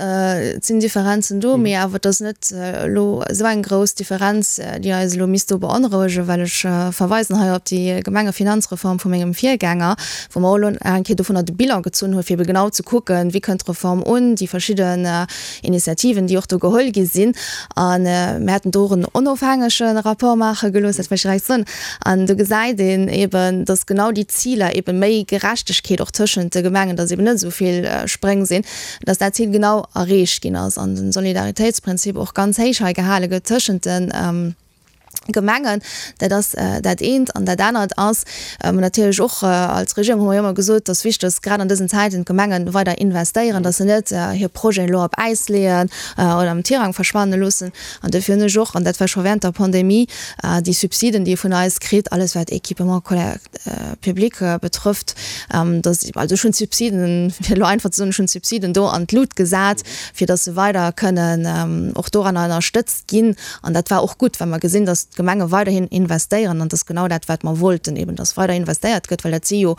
sinn d'Differenzen do, mee awer et ass net elo esou eng grouss Differenz, déi eis elo misst do beonrouegen, well ech verweisen hei op déi Gemengefinanzreform vu mengem Virgänger, wou mer och elo nach eng Kéier dovunner de Bilan gezunn hunn, fir ebe genau ze kucken, wéi kënnt d'Reform un, déi verschidden Initiativen, déi och do geholl gi sinn. A mir haten do och en onofhängege Rapport maache gelooss, dat wëll ech direkt soen. An do gesäit een eben, dass genau déi Ziler, eben méi Gerechtegkeet och tëschent de Gemengen, dass eben net esou vill Spréng sinn, dass dat Zil genau erreecht ginn ass an de Solidaritéitsprinzip och ganz héich hei gehale gëtt tëschent de Gemengen. Dat ass dat eent. An dat anert ass natierlech och, als Regierung hu mer jo ëmmer gesot, dass wichteg ass, grad an dësen Zäiten d'Gemenge weider investéieren, dass se net hir Projeten elo op Äis leeën oder am Tirang verschwanne loossen. An duerfir hunn ech och, an dat war scho während der Pandemie, déi Subsiden, déi ee vun eis kritt, alles wat Équipement public betrëfft, dass, also ech hunn d'Subsiden, fir elo einfach ze soen, ech hunn d'Subsiden do an d'Lut gesat, fir dass se weider kënnen och doranner ënnerstëtzt ginn. An dat war och gutt, well mer gesinn, dass d'Gemenge weiderhin investéieren. An dat ass genau dat, wat mer wollten, eben dass weider investéiert gëtt, well dat si jo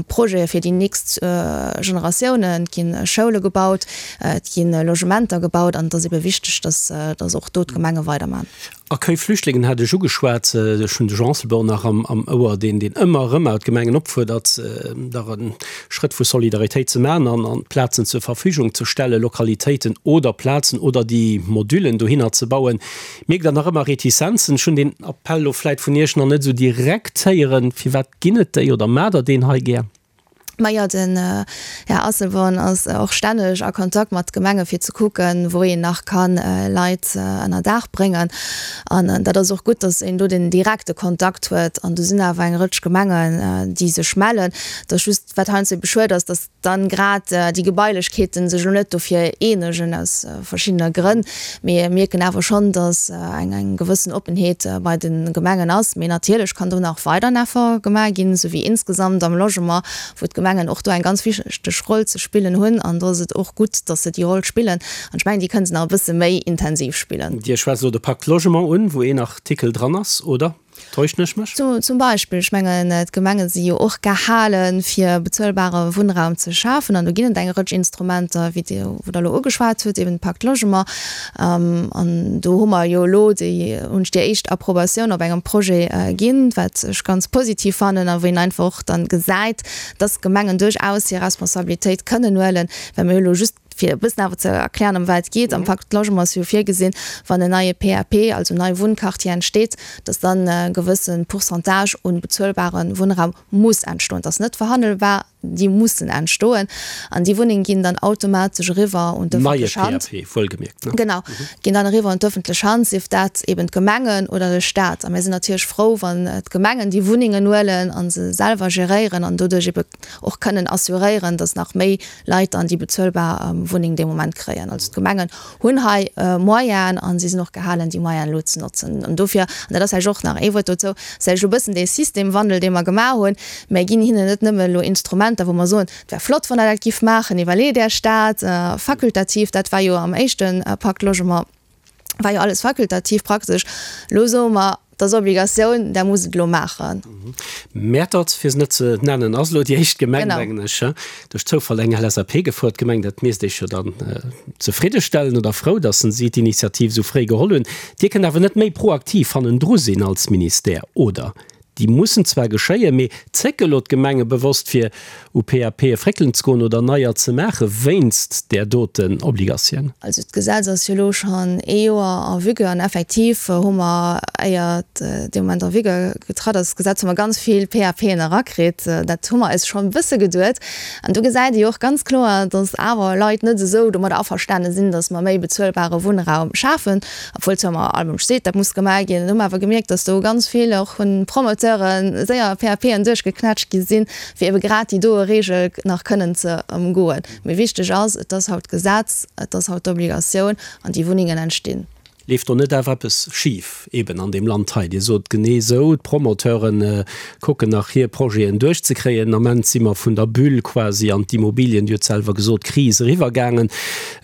Projete fir déi nächst Generatiounen. Et gi Schoule gebaut, et gi Logementer gebaut an et ass ebe wichteg, dass, dass och do d'Gemenge weidermachen. Accueil Flüchtlingen hat ech ugeschwat. Ech hunn de Jean Asselborn nach am Ouer, deen deen ëmmer erëm awer d'Gemengen opfuerdert, dach e Schrëtt vu Solidaritéit ze maachen an an Plazen zur Verfügung ze stellen, Lokalitéiten oder Plazen oder déi Modullen dohinner ze bauen. Mierkt Der nach ëmmer Retizenzen? Ech hunn deen Appell elo vläit vun Iech nach net esou direkt héieren. Firwat ginn et déi oder maacht Der deen hei gär? Majo, den Här Asselborn ass och stänneg a Kontakt mat Gemenge fir ze kucken, wou een nach ka Leit ënner Daach bréngen. An dat ass och gutt, datt een do den direkte Kontakt huet. An do sinn awer eng Rëtsch Gemengen, déi sech mellen. Et ass just, wat heiansdo ebe schued ass, datt dann grad déi Gebailechkeeten sech elo net dofir eenegen, aus verschiddene Grënn. Mee mir mierken awer schonn, datt eng eng gewëssen Oppenheet bei de Gemengen ass. Mee natierlech kann do nach weider en Effort gemaach ginn, esou wéi insgesamt am Logement, wou d'Gemengen och do eng ganz wichteg Roll ze spillen hunn. An do ass et och gutt, datt se déi Roll spillen. An ech mengen, déi kënne se nach e bësse méi intensiv spillen. Dir schwätzt elo de Pacte Logement un, wou een Artikel dran ass, oder? Täuschen ech mech? Zum Beispill, ech mengen, d'Gemenge si jo och gehalen, fir bezuelbare Wunnraum ze schafen. An do ginn et eng Rëtsch Instrumenter, wéi Dir, wou Der elo ugeschwat hutt, eben de Pacte Logement. An do hu mer jo elo déi, hunn ech déi éischt Approbatioun op engem Projet ginn, wat ech ganz positiv fannen a wou een einfach och dann gesäit, dass d'Gemengen duerchaus hir Responsabilitéit kënnen huelen, well mir hu elo just. Fir e bëssen awer ze erklären, ëm wat et geet, Am Pacte Logement ass jo virgesinn, wann en neie PAP, also nei Wunnquartier entsteet, dass dann e gewësse Pourcentage un bezuelbare Wunnraum muss entstoen. Dat ass net verhandelbar, déi mussen entstoen. An déi Wunnenge ginn dann automatesch eriwwer un d'ëffentlech Hand. Neie PAP, wuelgemierkt, ne? Genau, ginn dann eriwwer un d'ëffentlech Hand, sief dat eben d'Gemengen oder de Staat. A mir sinn natierlech frou, wann d'Gemengen déi Wunnengen huelen a se selwer geréieren an doduerch ebe och kënnen assuréieren, dass nach méi Leit dann déi bezuelbar Wunneng dee Moment kréien. Also d'Gemengen hunn hei Moyenen a si sinn och gehalen, déi Moyenen elo ze notzen. An dofir, an dat ass vläicht och nach ee Wuert dozou, ass vläicht elo e bëssen dee Systemwandel, dee mer gemaach hunn, Mir ginn hinnen net nëmme elo Instrumenter, wou mer soen, et wär flott, wann Der dat giff maachen, iwwerleet Iech dat, fakultativ, dat war jo am éischte Pacte Logement, war jo alles fakultativ praktesch. Elo soe mer, et ass Obligatioun, Der musst et elo maachen. Mäertert, fir se net ze nennen, ass elo déi éischt Gemeng, mengen ech, duerch Zoufall eng LSAP gefuert Gemeng. Dat misst Iech jo dann zefriddestellen oder frou, datt si d'Initiativ esou fréi geholl hunn. Dir kënnt awer net méi proaktiv hannendru sinn als Ministère, oder? Déi mussen zwar geschéien, mee zécke elo d'Gemenge bewosst fir u PAPe fréckelen ze goen oder neier ze maache wéinst där doten Obligatioun? Also d'Gesetz ass jo elo schonn ee Joer en vigueur an effektiv hu mer, éier et dee Moment en vigueur getratt ass, d'Gesetz, hu mer ganz vill PAPen erakritt. Dat hu mer eis schonn e bësse geduet. An do gesäit ee jo och ganz kloer, datt awer Leit net esou domadder averstane sinn, datt mer méi bezuelbare Wunnraum schafen. Obwuel zwar ëmmer all Mënsch seet, dat muss gemaach ginn, hu mer awer gemierkt, datt do ganz vill och vun Promoteure séier PAPen duerchgeknätscht gi sinn, fir ebe grad déi doe Reegel nach kënnen ze ëmgoen. Mee wichteg ass, et ass haut Gesetz, et ass haut d'Obligatioun an déi Wunnengen entstinn. Leeft do net awer eppes schif eben an deem Land hei? Dir sot genee esou, d'Promoteure kucken nach hir Projeten duerchzekréien. Den Ament si mer vun der Bulle quasi an d'Immobilien, Dir hutt selwer gesot, Kris eriwwergaangen.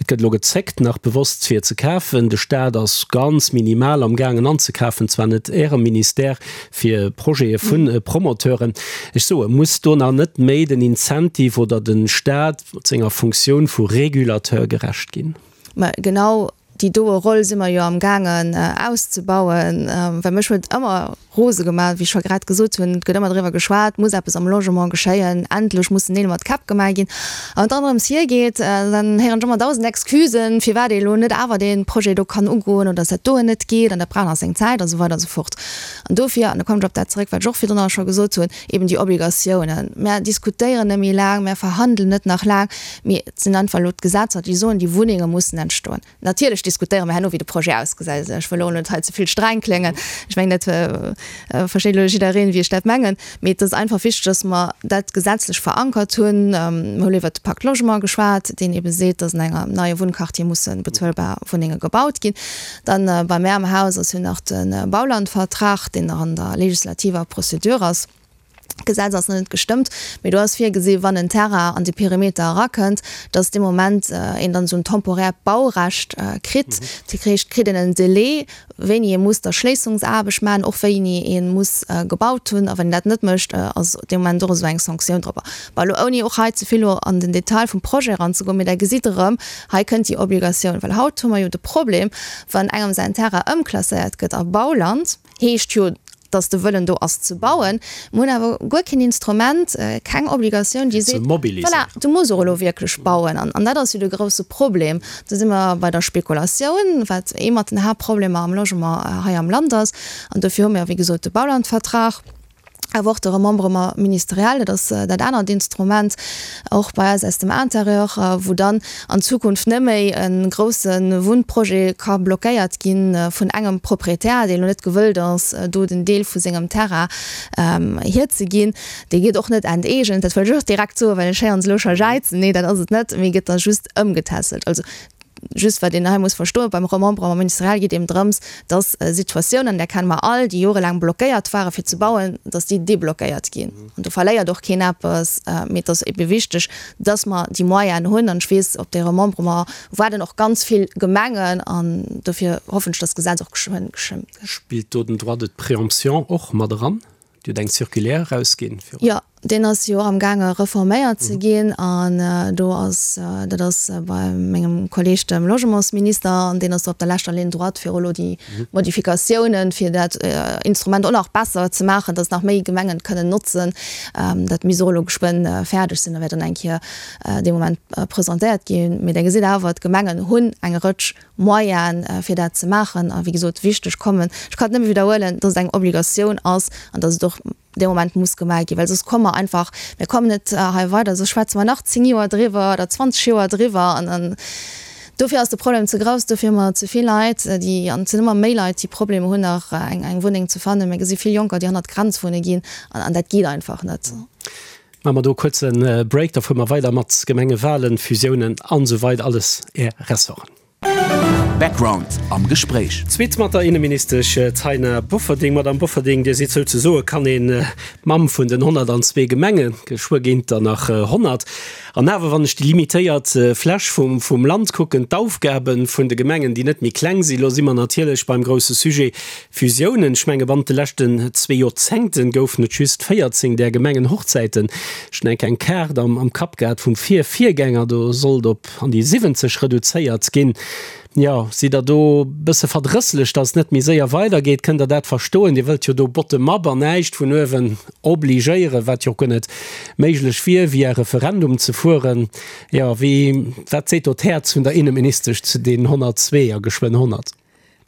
Et gëtt elo gezéckt, nach bewosst fir ze kafen. De Staat ass ganz minimal am gaangen anzekafen, zwar net Ärem Ministère, fir Projete vu Promoteuren. Ech soe, muss do nach net méi den Incentive oder de Staat mat senger Funktioun vu Régulateur gerecht ginn? Mä genau déi doe Roll si mer jo am gaangen auszebauen, well mech huet ëmmer rose gemaach, wéi ech scho grad gesot hunn, et gëtt ëmmer driwwer geschwat, muss eppes am Logement geschéien, endlech mussen Neel mat Käpp gemaach ginn. A wann et dann drëms hiergeet, dann héieren ech ëmmer dausend Excusen, firwat ee elo net awer dee Projet do kann ugoen oder dass dat doen net geet an dat brauch nach seng Zäit a sou weider a sou fort. An dofir, an da kommen ech op dat zeréck, wat ech och virdrun scho gesot hunn, eben déi Obligatiounen. Mär diskutéieren net méi laang, mär verhandelen net nach laang, mee et sinn einfach elo d'Gesetzer, déi soen, déi Wunnenge mussen entstoen. Natierlech diskutéiere mer herno, wéi de Projet ausgesäit. Ech wëll elo net hei ze vill streng kléngen. Ech mengen, dat versteet elo jiddereen, wéi ech dat mengen. Mee et ass einfach wichteg, dass mer dat gesetzlech verankert hunn. Mer hu elo iwwert de Pacte Logement geschwat, deen eebe seet, dass an engem neie Wunnquartier musse bezuelbar Wunnenge gebaut ginn. Dann bei mär am Haus ass jo nach de Baulandvertrag, deen nach an der legislativer Procédure ass. D'Gesetz ass nach net gestëmmt, mee do ass virgesi wann en Terrain an de Perimeter erakënnt, datt dee Moment een dann esou en temporäert Baurecht kritt. Dat heescht, kritt een en Delai, wéini ee muss d'Erschléissungsaarbecht maachen, och wéini ee muss gebaut hunn. A wann een dat net mécht, ass dee Moment och esou eng Sanktioun drop. Bon, elo ouni och hei ze vill elo an den Detail vum Projet eranzegoen, mee Der gesitt erëm, hei kënnt déi Obligatioun. Well haut hu mer jo de Problem, wann engem säin Terrain ëmklasséiert gëtt a Bauland, heescht jo, dass de Wëllen do ass ze bauen. Mer hunn awer guer keen Instrument, keng Obligatioun, déi seet, voilà, du muss och elo wierklech bauen. An dat ass jo de grouse Problem. Do si mer bei der Spekulatioun, wat ee mat den Haaptproblemer am Logement hei am Land ass. An dofir hu mir, wéi gesot, de Baulandvertrag, awer och de Remembrement ministériel, dat ass dat anert Instrument, och bei eis aus dem Intérieur, wou dann an Zukunft net méi e grousse Wunnprojet ka blockéiert gi vun engem Proprietär, deen elo net gewëllt ass, do den Deel vu sengem Terrain hierzeginn. Dee gëtt och net enteegent, dat wëll ech och direkt soen, well ech héieren se elo scho jäizen. Nee, dat ass et net, mee gëtt da just ëmgetässelt. Also Just wat een hei muss verstoen, beim Remembrement ministériel geet eben drëms, dass Situatiounen, där kenne mer all, déi jorelaang blockéiert ware fir ze bauen, dass déi deblockéiert ginn. An do verléiert och keen eppes. Mee et ass ebe wichteg, dass mer déi Moyenen hunn. An ech weess, op dee Remembrement waarden och ganz vill Gemengen. An dofir hoffen ech, dass d'Gesetz och geschwënn gestëmmt gëtt. Spillt do den Droit de préemption och mat eran? Dir hutt eng Circulaire erausginn viru. Jo. Deen ass jo och am gaange reforméiert ze ginn an do ass, dat ass bei mengem Kolleg dem Logementsminister, an deen ass do op der leschter Ligne droite fir elo déi Modifikatiounen, fir dat Instrument och nach besser ze maachen, datt nach méi Gemengen et kënnen notzen. Dat misst och elo geschwënn fäerdeg sinn a wäert dann eng Kéier dee Moment presentéiert ginn. Mee Der gesitt awer, d'Gemengen hunn eng Rëtsch Moyene fir dat ze maachen. A wéi gesot, wichteg kommen, ech kann et nëmme widderhuelen, datt et eng Obligatioun ass an datt et och dee Moment muss gemaach ginn, well soss komme mer einfach, mir kommen net hei weider, soss schwätze mer nach 10 Joer driwwer oder 20 Joer driwwer an dann, dofir ass de Problem ze grouss, dofir hu mer ze vill Leit, déi, an et sinn ëmmer méi Leit, déi Problemer hunn nach eng eng Wunneng ze fannen. Mir gesi vill Jonker, déi hannert d'Grenz wunne ginn an an dat geet einfach net. Maache mer do e kuerze Break, da fuere mer weider mat Gemengewahlen, Fusiounen an esou weider, alles Är Ressorten. Background am Gespréich. Zweet mat der Inneministesch Taina Bofferding. Madame Bofferding, Dir sidd souzesoe, kann een, d'Mamm vun den 102 Gemengen. Geschwë ginn et der nach 100. An awer, wann ech déi limitéiert Fläch vum Land kucken, d'Aufgabe vun de Gemengen, déi net méi kleng sinn, elo si mer natierlech beim grousse Sujet Fusiounen. Ech menge bannent de leschten zwee Joerzéngte goufen et just 14 där Gemengenhochzäiten. Ech hunn eng Kaart am Kapp gehat vum Vir-Virgänger, do sollt op an déi 70 reduzéiert ginn. Jo, sidd Der do bësse verdrësslech, datt et net méi séier weidergeet? Kënnt Der dat verstoen? Dir wëllt jo do bottom-up an näischt vun uewen obligéieren, wat jo och guer net méiglech wier, via Referendum ze fueren. Jo, wéi, wat seet do d'Häerz vun der Inneministesch zu deenen 102 a geschwënn 100?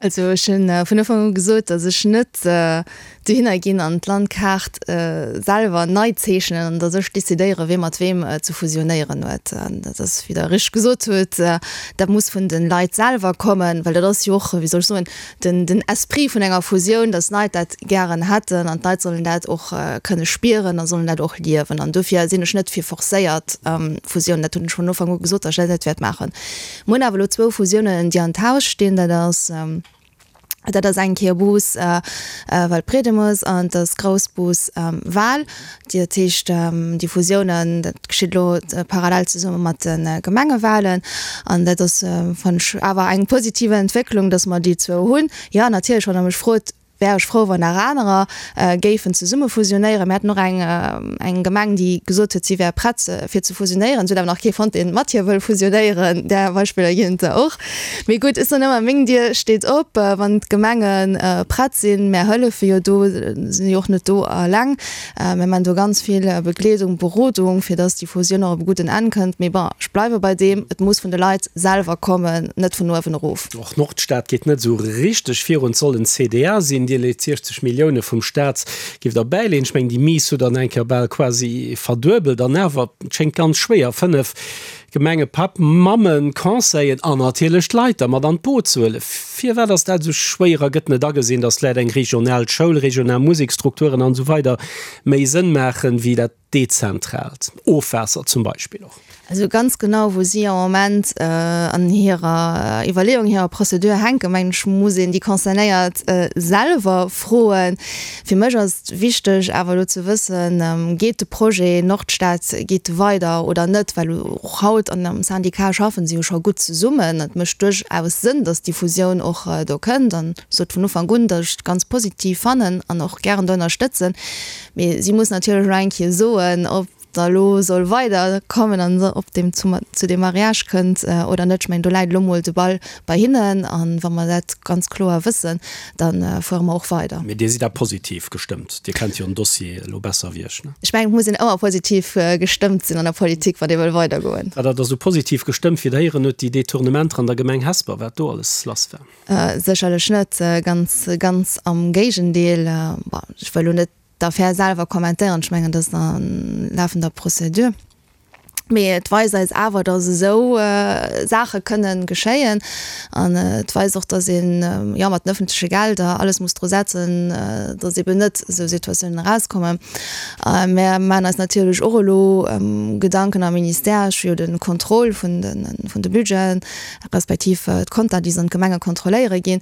Also ech hunn vun Ufank u gesot, datt ech net dohinner ginn an d'Landkaart selwer nei zeechnen an datt ech decidéiere wie mat weem ze fusionéieren huet. Dat ass, wéi Der richteg gesot hutt, dat muss vun de Leit selwer kommen, well dat ass jo och, wéi soll ech soen, den den Esprit vun enger Fusioun, datt d'Leit dat gären hätten an d'Leit sollen dat och kënne spieren a sollen dat och liewen. An dofir sinn ech net fir forcéiert Fusiounen. Dat hunn ech vun Ufank u gesot, datt ech dat net wäert maachen. Mir hunn awer elo zwou Fusiounen, déi an d'Haus stinn. Dat ass, dat ass eng Kéier Bous Waldbriedemes an et ass Groussbus Wal. Dat heescht, déi Fusiounen, dat geschitt elo parallel zesumme mat de Gemengewalen. An dat ass, fannen ech, awer eng positiv Entwécklung, datt mer déi zwou hunn. Jo, natierlech, wann Der mech frot, Wär ech frou, wann nach anerer géifen zesumme fusionéieren. Mir haten och eng eng Gemeng, déi gesot huet, si wär prett fir ze fusionéieren. Se huet awer nach kee fonnt, dee mat hir wëll fusionéieren. Där Beispiller ginn et der och. Mee gutt, ech soen ëmmer, meng Dier steet op, wann d'Gemenge prett sinn. Mär hëllefe jo do, sinn jo och net do eleng. Mir man do ganz vill Begleedung, Berodung, fir dass déi Fusioun och op e gudden Enn kënnt. Mee bon, ech bleiwe bei deem, et muss vun de Leit selwer kommen, net vun uewen erof. Och d'Nordstad geet net esou richteg virun. Et soll en CDA sinn. Dir leet 60 Millioune vum Staat giff der bäileeën. Ech mengen, déi Mise hutt der an eng Kéier bal quasi verduebelt. An awer, et schéngt ganz schwéier, 5 Gemenge, Papp, Mammen, Conseillen an natierlech d'Leit da mat an d'Boot ze huelen. Firwat ass dat esou schwéier a gëtt net agesinn, datt vläicht eng regional Schoul, regional Museksstrukturen an esou weider méi Sënn maachen, wéi dat dezentraalt Ofwaasser zum Beispill och? Also ganz genau wou si am Moment an hirer Iwwerleeung, hirer Procédure hänken, mengen ech, muss een déi Concernéiert selwer froen. Fir mech ass et wichteg awer elo ze wëssen, geet de Projet Nordstad, geet de weider oder net? Well och haut an am Syndicat schaffen se jo scho gutt zesummen. Et mécht duerchaus Sënn, datt déi Fusioun och do kënnt an ech sot vun Ufank un, datt ech et ganz positiv fannen an och gären do ënnerstëtzen. Mee si muss natierlech elo eng Kéier soen, ob da elo soll weider kommen an ob deem zu zu deem Mariage kënnt oder net. Ech mengen, do läit elo mol de Ball bei hinnen an wa mer dat ganz kloer wëssen, da fuere mer och weider. Mee Dir sidd da positiv gestëmmt? Dir kennt jo den Dossier elo besser wéi ech, ne? Ech mengen, et muss een ëmmer positiv gestëmmt sinn an der Politik, wann ee wëll weidergoen. War dat esou positiv gestëmmt, wéi Der héieren hutt, déi Detournementer an der Gemeng Hesper, wat do alles lass war? Sécherlech net, ganz, ganz am Géigendeel. Bon, ech wëll elo net d'Affär selwer kommentéieren, ech mengen, dat ass a lafender Procédure. Mee et weist eis awer, datt esou Saache kënnen geschéien. An et weist och, datt een, jo, mat den ëffentleche Gelder alles muss dru setzen, datt eeben net esou Situatiounen erauskommen. Mär maachen eis natierlech och elo Gedanken am Ministère. Ech hu jo de Contrôle vun de, vun de Budgeten, respektiv d'Konter, déi se an d'Gemenge kontrolléiere ginn.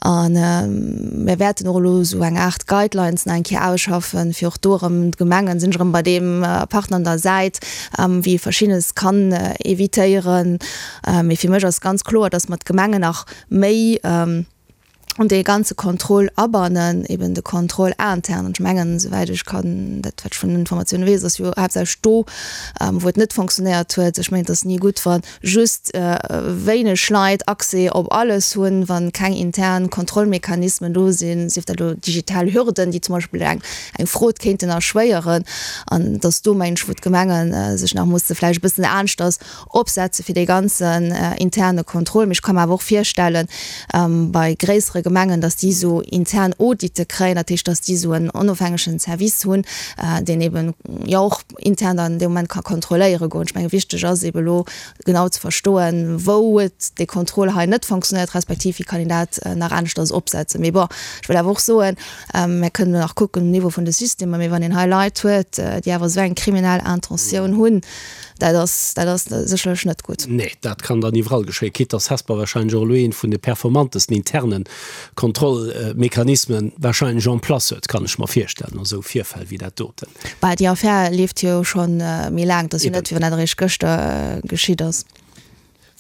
A mir wäerten och elo esou eng Aart Guidelines nach eng Kéier ausschaffen, fir och do erëm d'Gemengen, sinn ech erëm bei deem Partner an der Säit, wéi ee Verschiddenes kann evitéieren. Mee fir mech ass ganz kloer, dass mer d'Gemengen nach méi. An dee ganze Contrôle abannen, eben de Contrôle interne. An ech mengen, esouwäit ech kann, dat wat ech vun den Informatioune weess, ass jo haaptsächlech do, wou et net fonctionnéiert huet. Ech mengen, et ass ni gutt, wa just wéineg Leit Accès op alles hunn, wa keng intern Kontrollmechanismen do sinn, sief dat elo digital Hürden, déi zum Beispill eng eng Frod kéinten erschwéieren. An et ass do, mengen ech, wou d'Gemenge sech nach musse vläicht e bëssen aneschters opsetze fir dee ganzen interne Contrôle. Mee ech ka mer awer och virstellen, bei gréissere Gemengen, datt déi esou intern Audite kréien, dat heescht, datt déi esou en onofhängegen Service hunn, deen eben jo och intern dann dee Moment ka kontrolléiere goen. Ech menge wichteg ass eben elo genau ze verstoen, wou huet dee Contrôle hei net fonctionnéiert, respektiv wéi kann een dat nach aneschters opsetzen. Mee bon, ech wëll awer och soen, Mär kënnen elo nach kucken um Niveau vun de Systemer, mee wann een hei Leit huet, déi awer esou eng kriminell Intentioun hunn, dat ass, dat ass sécherlech net gutt. Nee, dat kann dann iwwerall geschéien, quitte dass Hesper wahrscheinlech och elo een vun de performantesten interne Kontrollmechanismen wahrscheinlech en place huet, kann ech mer virstellen, a sou Virfäll wéi dat doten. Bah, déi Affär leeft jo scho méi laang, et ass jo net, wéi wann dat eréischt gëschter geschitt ass.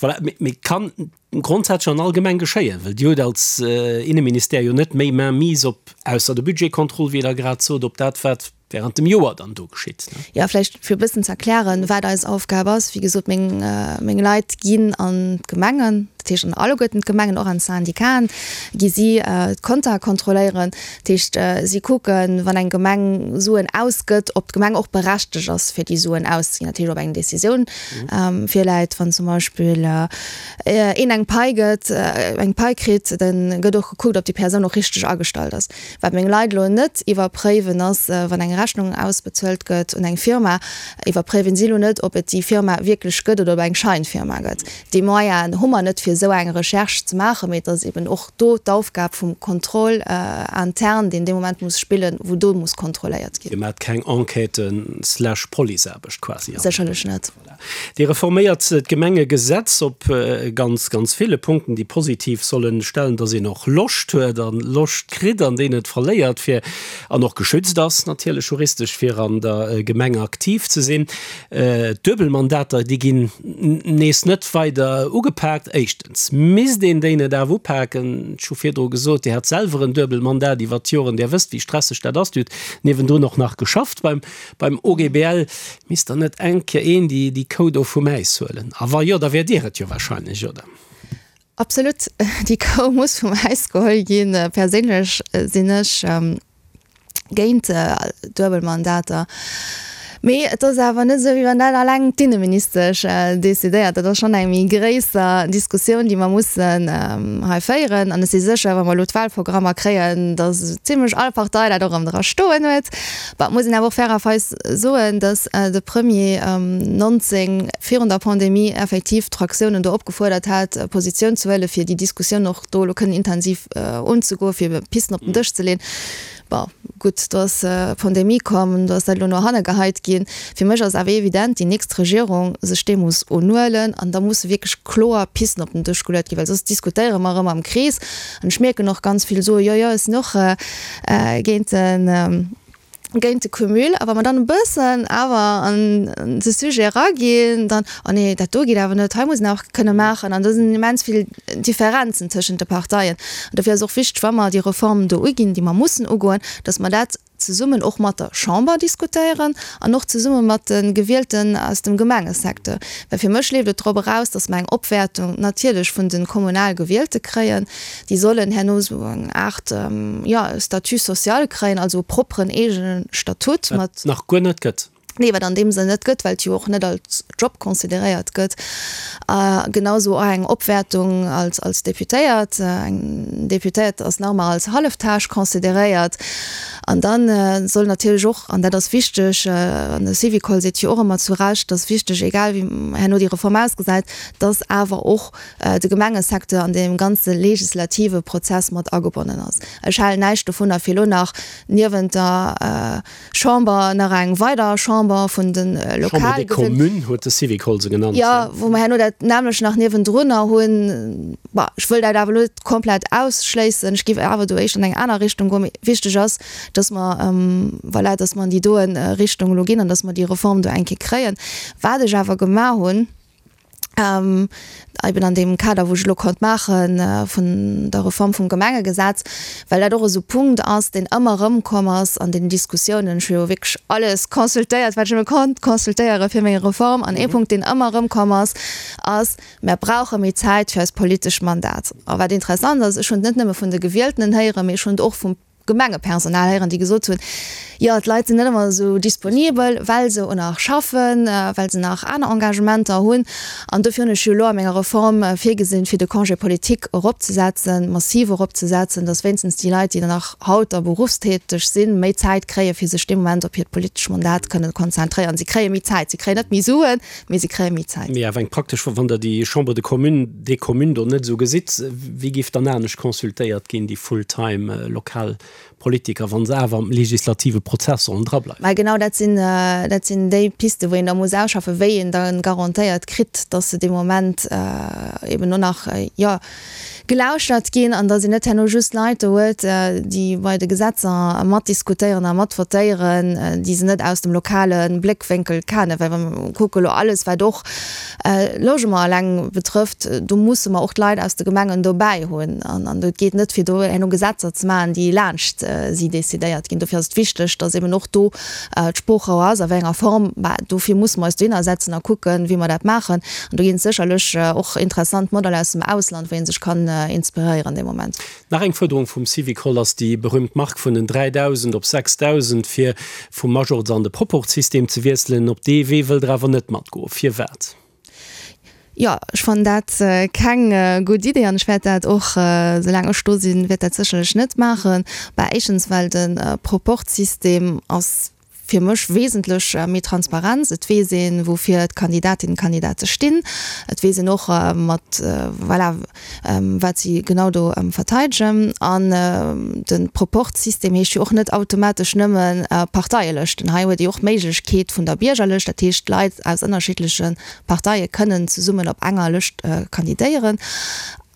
Voilà, mee kann grondsätzlech an all Gemeng geschéien, well Dir hutt als Inneministère jo net méi Mainmise op, ausser de Budgetcontrôle, wéi Der grad sot, op dat, wat während dem Joer dann do geschitt. Jo, vläicht fir e bëssen ze erklären, wat eis Aufgab ass. Wéi gesot, meng, meng Leit ginn an d'Gemengen, dat heescht an alleguerten d'Gemengen, och an d'Syndicaten, gi si d'Kontae kontrolléieren. Dat heescht, si kucken, wann eng Gemeng Suen ausgëtt, ob d'Gemeng och berechtegt ass, fir déi Suen auszeginn. Dat heescht, ob eng Decisioun virläit. Wann zum Beispill een eng Pai gëtt, eng Pai kritt, da gëtt och gekuckt, ob déi Persoun och richteg agestallt ass. Wat meng Leit elo net iwwerpréiwen, ass, wann eng Rechnung ausbezuelt gëtt un eng Firma, iwwerpréiwen si elo net, ob et déi Firma wierklech gëtt oder ob eng Scheinfirma gëtt. Déi Moyenen hu mer net, fir esou eng Recherche ze maachen, mee et ass eben och do d'Aufgab vum Contrôle interne, deen dee Moment muss spillen, wou do muss kontrolléiert ginn. Dir maacht keng Enquêten slash Policeaarbecht quasi? Sécherlech net. Voilà. Dir reforméiert d'Gemengegesetz op ganz, ganz ville Punkten, déi positiv sollen stellen, dass een och Loscht huet a Loscht kritt an déi net verléiert, fir, an och geschützt ass natierlech juristesch, fir an der Gemeng aktiv ze sinn. D'Duebelmandater, déi ginn nees net weider ugepaakt. Éischtens misst een déi net awer upaken. Ech hu virdru gesot, Dir hat selwer en Duebelmandat iwwert d'Joren. Dir wësst, wéi stresseg dat ass. Dir hutt niewendrun och nach geschafft beim, beim OGBL. Misst dann net eng Kéier een déi, déi Kou do vum Äis huelen? A wa jo, da wäert Dir et jo wahrscheinlech, oder? Absolut, déi Kou muss vum Äis geholl ginn. Perséinlech sinn ech géint Duebelmandater. Mee et ass awer net esou, wéi wann dat alleng d'Inneministesch decidéiert. Dat ass schonn eng méi gréisser Diskussioun, déi mer mussen hei féieren. An ech si sécher, wa mer elo d'Wahlprogrammer kréien, datt zimlech all Partei dat och erëm dra stoen huet. Bon, et muss een awer och fairerweis soen, datt de Premier 19 virun der Pandemie effektiv d'Fraktiounen do opgefuerdert hat, Positioun ze huelen, fir déi Diskussioun och do elo kënnen intensiv unzegoen, fir Pisten op den Dësch ze leeën. Bon, gutt, do ass d'Pandemie komm, do ass dat elo no hanne geheit ginn. Fir mech ass awer evident, déi nächst Regierung sech deem muss unhuelen an da musse wierklech kloer Pisten op den Dësch geluet ginn, well soss diskutéiere mer erëm am Krees. An ech mierken och ganz vill soe, jo, jo, ech sinn och géint den, géint de Cumul. A wa mer dann e bëssen awer an de Sujet eraginn, dann, oh nee, dat do geet awer net, hei muss een awer kënne maachen. An do sinn immens vill Differenzen tëschent de Parteien. An dofir ass och wichteg, wa mer déi Reform do uginn, déi mer mussen ugoen, datt mer dat zesummen och mat der Chamber diskutéieren an och zesumme mat de Gewielten aus dem Gemengesecteur. Well fir mech leeft et drop eraus, datt mer eng Opwäertung natierlech vun de kommunal Gewielte kréien. Déi sollen herno esou eng Aart, jo, Statut social kréien, also e propperen eegene Statut mat. Wat nach guer net gëtt. Nee, wat an deem Sënn net gëtt, well et jo och net als Job consideréiert gëtt. A genau esou och eng Opwäertung als, als Deputéiert. Eng Deputéiert ass nach ëmmer als Halleftâche consideréiert. An da soll natierlech och, an dat ass wichteg, an de Syvicol seet jo och ëmmer zu Recht, dass wichteg, egal wéi herno déi Reform ausgesäit, dass awer och de Gemengesecteur an deem ganze legislative Prozess mat agebonnen ass. Ech halen näischt dovunner, fir elo nach niewent der Chamber nach eng weider Chamber vun de lokal. Chambre des Communes huet de Syvicol se genannt. Jo, wou mer herno dat nämmlecht nach niewendrunner hunn. Bon, ech wëll dat awer elo net komplett ausschléissen. Ech géif awer do éischter an eng aner Richtung goen. Mee wichteg ass, dass mer, voilà, dass mer an déi doen Richtung elo ginn an dass mer déi Reform do eng Kéier kréien. Wat ech awer gemaach hunn. Eben an deem Kader, wou ech elo konnt maache vun der Reform vum Gemengegesetz, well dat och esou Punkt ass, deen ëmmer erëmkomm ass an den Diskussiounen. Ech hu jo wierklech alles consultéiert, wat ech nëmme konnt consultéiere fir meng Reform. An ee Punkt, deen ëmmer erëmkomm ass, ass, Mär brauche méi Zäit fir eist politesch Mandat. A wat interessant ass, ech hunn et net nëmme vun de Gewieltenen héieren, mee ech hunn et och vum Gemengepersonal héieren, déi gesot hunn, jo d'Leit sinn net ëmmer esou disponibel, well se o nach schaffen, well se nach aner Engagementer hunn. An dofir hunn ech jo elo a menger Reform virgesinn, fir de Congé politique eropzesetzen, massiv eropzesetzen, datt wéinstens déi Leit, déi dann nach haut da berufstäteg sinn, méi Zäit kréien, fir sech dee Moment op hiert politesch Mandat kënnen konzentréieren. Si kréie méi Zäit, si kréien net méi Suen, mee si kréie méi Zäit. Mee awer eng praktesch Fro, Wann Der déi Chambre de Communes, des Communes do net esou gesitt, wéi géif dann anescht consultéiert ginn, déi full-time lokal Politiker, wa se awer am legislative Prozess sollen drableiwen? Mä genau dat sinn, dat sinn déi Pisten, wou een da muss ausschaffen, wéi een da garantéiert kritt, dass se dee Moment eben och nach, jo, gelauschtert ginn an dass een net herno just Leit do huet, déi bei de Gesetzer matdiskutéieren a matvotéieren, déi se net aus dem lokale Bléckwénkel kennen. Well wa mer kucke elo alles, wat och Logement eleng betrëfft, do musse mer och d'Leit aus de Gemengen dobäi hunn. An et geet net, fir do herno Gesetzer ze maachen, déi laanscht si decidéiert ginn. Dofir ass et wichteg, dass eben och do d'Sproochrouer ass, a wéi enger Form, bah, dofir musse mer eis dohinner setzen a kucken, wéi mer dat maachen. An do ginn et sécherlech och interessant Modeller aus dem Ausland, wou ee sech kann inspiréieren dee Moment. Nach eng Fuerderung vum Syvicol ass déi berühmt Mark vun den 3.000 op 6.000, fir vum Majorz an de Proporzsystem ze wiesselen. Op dee Wee wëllt Der awer net matgoen. Firwat? Jo, ech fannen dat keng gutt Idee an ech wäert dat och, soulaang ech do sinn, wäert dat sécherlech net maachen. Bah, éischtens well de Proporzsystem ass fir mech wesentlech méi Transparenz. Et weess een, woufir d'Kandidatinnen an d'Kandidate stinn. Et weess een och mat, voilà, wat si genau do verteidegen. An de Proporzsystem heescht jo och net automatesch nëmme Parteielëschten. Hei huet ee och d'Méiglechkeet vun der Biergerlëscht, dat heescht Leit aus ënnerschiddleche Parteie kënnen zesummen op enger Lëscht kandidéieren.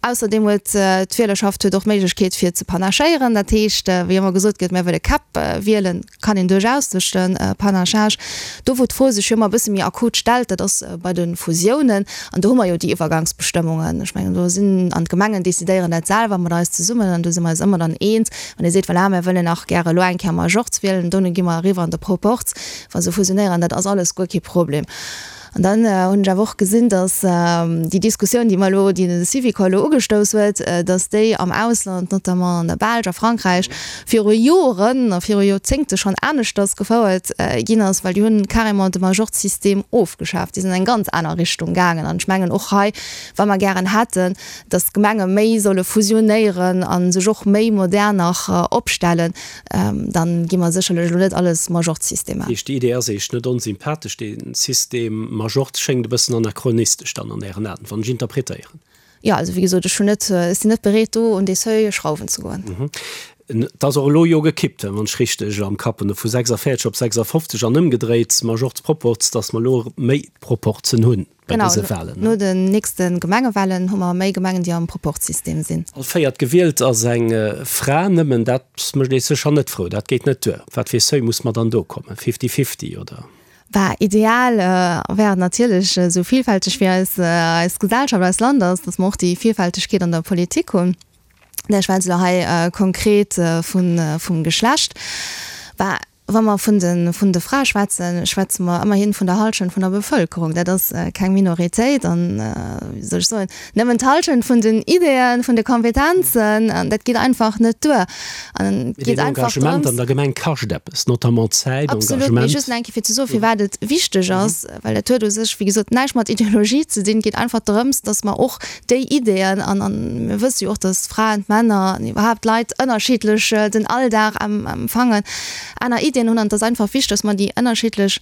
Ausserdeem huet d'Wielerschaft huet och d'Méiglechkeet fir ze panachéieren. Dat heescht, wéi ëmmer gesot gëtt, mär wëlle Käpp wielen, kann een duerchaus duerch de Panachage. Do wou d'Fro sech jo ëmmer e bësse méi akut stellt, dat ass bei de Fusiounen. An do hu mer jo déi Iwwergangsbestëmmungen. Ech mengen, do sinn, an d'Gemengen decidéieren dat selwer mat eis zesummen an do si mer eis ëmmer dann eens, wann ee seet, voilà, mär wëllen nach gäre elo eng Kéier Majorz wielen, dono gi mer eriwwer an de Proporz, wa se fusionéieren, dat ass alles guer kee Problem. An dann hunn ech awer och gesinn, datt déi Diskussioun, déi mer elo, déi de Syvicol elo ugestouss huet, datt déi am Ausland, notamment an der Belsch a Frankräich, viru Joren a viru Joerzéngte schonn aneschters gefouert ginn ass, well déi hunn carrément de Majorzsystem ofgeschaaft. Déi sinn an eng ganz aner Richtung gaangen. An ech mengen och hei, wa mer gären hätten, datt d'Gemenge méi solle fusionéieren a sech och méi modern nach opstellen, Dann gi mer sécherlech elo net alles Majorzsystem maachen. Heescht, déi Idee ass Iech net onsympathesch, dee System Majorz schéngt e bëssen anachronistesch dann an Ären Aen, wann ech interpretéieren. Jo, also wéi gesot, ech hunn net, ech sinn net bereet do un dee Seuil schrauwen ze goen. Et ass och elo jo gekippt, wann ech richteg am Kapp hunn, vu 46 op 56 an ëmgedréit, Majorz-Proporz, datt mer elo méi Proporzen hunn. bei dëse Walen. Genau, no den nächste Gemengewalen hu mer méi Gemengen, déi am Proporzsystem sinn. All véiert Gewielt ass eng Fra. Nëmmen dat mécht ee sécher net frou. Dat geet net duer. Op wat fir ee Seuil muss mer dann do kommen? Fifty-fifty, oder? Bah, ideal wär et natierlech, esou villfälteg wéi eis eis Gesellschaft, eist Land ass, datt mer och déi Villfältegkeet an der Politik hunn. Ech schwätze elo hei konkret vum Geschlecht. Bah, Wa mer vun de vun de Frae schwätzen, schwätze mer ëmmerhin vun der Hallschent vun der Bevëlkerung. Dat ass keng Minoritéit an, wéi soll ech soen, nëmmen d'Hallschent vun den Ideeën, vun de Kompetenzen, an dat geet einfach net duer. An et geet einfach drëms. Engagement an der Gemeng kascht eppes, notamment Zäit, Engagement. Absolut, mee just nach eng Kéier fir ze soen, firwat et wichteg ass, well dat huet u sech, wéi gesot, näischt mat Ideologie ze dinn. Et geet einfach drëms, datt mer och déi Ideeën, an mir wësse jo och, datt Fraen, d'Männer an iwwerhaapt d'Leit ënnerschiddlech den Alldag empfangen, aner Ideeën hunn an et ass einfach wichteg, datt mer déi ënnerschiddlech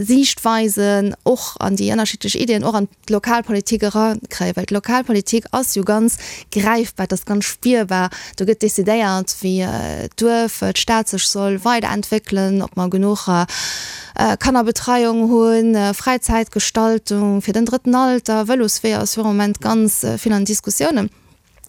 Siichtweisen och an déi ënnerschiddlech Ideeën och an d'Lokalpolitik erakréien, well d'Lokalpolitik ass jo ganz gräifbar, et ass ganz spierbar, do gëtt decidéiert, wéi d'Duerf, d'Stad sech soll weiderentwéckelen, ob mer genuch Kannerbetreiung hunn, Fräizäitgestaltung fir den drëtten Alter, Vëlosweeër ass jo am Moment ganz vill an Diskussiounen.